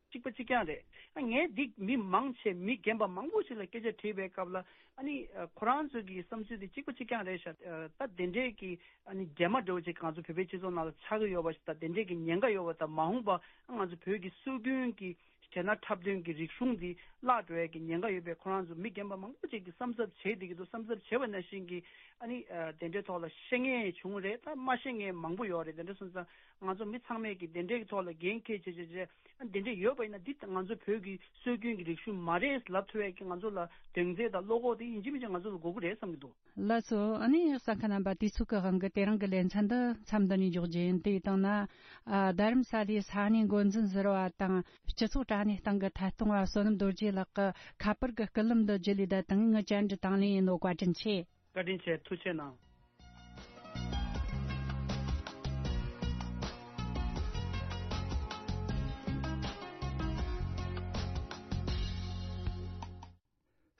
གཅིག་པ་གཅིག་རྐྱང་རེད། ཨ་ངས་འདི་མི་མང་ཆེ་མི་རྒན་པ་མང་པོ་ཞིག་ལ་སྐད་ཆ་དྲིས་པའི་སྐབས་ལ་ཨ་ནི་ཨ་ཁོ་རང་ཚོ་གི་བསམ་ཚུལ་དེ་གཅིག་པ་གཅིག་རྐྱང་རེད་ཤག་ཨ་ད་དེ་འདྲས་ཀྱི་ཨ་ནི་འདྲེས་མ་འདྲ་བོ་ཅིག་ང་ཚོ་བོད་པའི་སྤྱི་ཚོགས་ནང་ལ་ཆགས་ཀྱི་ཡོད་པ་ཞིག་དང་། དེ་འདྲས་ཀྱི་ཉེན་ཁ་ཡོད་པ་དང་། མ་འོངས་པ་ང་ཚོ་བོད་ཀྱི་སྲོལ་རྒྱུན་གྱི་གཞས་སྣ་འཁྲབ་སྟོན་གྱི་རིག་གཞུང་འདི་བརླག་འགྲོ་ཡས་ཀྱི་ཉེན་ཁ་ཡོད་པས། ཁོ་རང་ཚོ་མི་རྒན་པ་མང་པོ་ཅིག་གིས་བསམ་གཟབ་བྱས་བསྡད་ཀྱི་འདུག་བསམ་གཟབ་བྱས་པ་ནང་བཞིན་གྱི་ཨ་ནི་ཨ་དེ་འདྲའི་ཐོག་ལ་ཤེས་མཁན་བྱུང་རེད། ད་མ་ཤེས་མཁན་མང་པོ་ཡོད་རེད། དེ་འདྲ་སོང་ཙང་ང་ཚོ་མི་ཚང་མས་ཀྱིས་དེ་འདྲའི་ཐོག་ལ་འགན་འཁྱེར་བྱས་བྱས་བྱས་ཨ་དེ་འདྲ་ཡོད་པ་ཡིན་ན་འདི་ང་ཚོ་བོད་ཀྱི་སྲོལ་རྒྱུན་གྱི་རིག་གཞུང་མ་རེད་ལབ་ཐུབ་ཡས་ཀྱི་ང་ཚོ་ལ་གདེང་ཚོད་དང་བློ་ཁོག་དེ་ཡིན་གཅིག་མིན་གཅིག་ང་ཚོ་ལ་དགོས་ཀྱི་རེད་བསམ་གྱི་འདུག་ལགས་སོ། ཨ་ནི་གསན་མཁན་རྣམ་པ། དུས་ཚོད་ཀྱི་དབང་གིས་དེ་རིང་གི་ལེ་ཚན་འདི་མཚམས་འདི་ནས་འཇོག་རྒྱུ་ཡིན། དེ་ཡིན་དང་ན་ཨ་རྡ་རམ་ས་ལའི་ས་གནས་འགོ་འཛིན་ཟུར་པ་དང་སྤྱི་ཚོགས་དྲ་གནས་སྟེང་གི་ཐད་གཏོང་བ་བསོད་ནམས་རྡོ་རྗེ་ལགས་ཀྱི་ཁ་པར་གྱི་སྐུད་ལམ་དུ་བརྒྱུད་ལས་བསྡད་དང་། ངའི་བཅར་འདྲི་དང་ལེན་ཡིན་ནོ། བཀའ་དྲིན་ཆེ། བཀའ་དྲིན་ཆེ། ཐུགས་རྗེ་གནང་།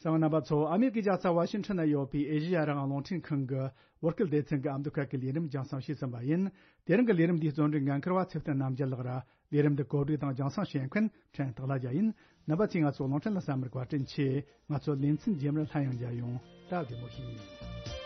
གསན་པ་རྣམ་པ་ཚོ། ཨ་མེ་རི་ཀའི་རྒྱལ་ས་ཝ་ཤིང་ཊོན་ན་ཡོད་པའི་ཨེ་ཤེ་ཡ་རང་དབང་རླུང་འཕྲིན་ཁང་གི་བོད་སྐད་སྡེ་ཚན་གྱི་ཨ་མདོ་ཁ་གི་ལས་རིམ་རྒྱང་སྲིང་ཞུས་ཟིན་པ་ཡིན། དེ་རིང་གི་ལས་རིམ་འདིའི་གཙོ་འགན་འཁུར་བ་ཚེ་བརྟན་རྣམ་རྒྱལ་ལགས་ར། ལས་རིམ་འདི་གོ་སྒྲིག་དང་རྒྱང་སྲིང་བྱེད་མཁན་ཕྲན་སྟག་ལྷ་རྒྱལ་ཡིན། རྣམ་པ་ཚོས་ང་ཚོ་རླུང་འཕྲིན་ལ་གསན་པར་བཀའ་དྲིན་ཆེ། ང་ཚོ་ལེ་ཚན་རྗེས་མར་སླར་ཡང་མཇལ་ཡོང་། སྟབས་བདེ་མོ་བྱོས།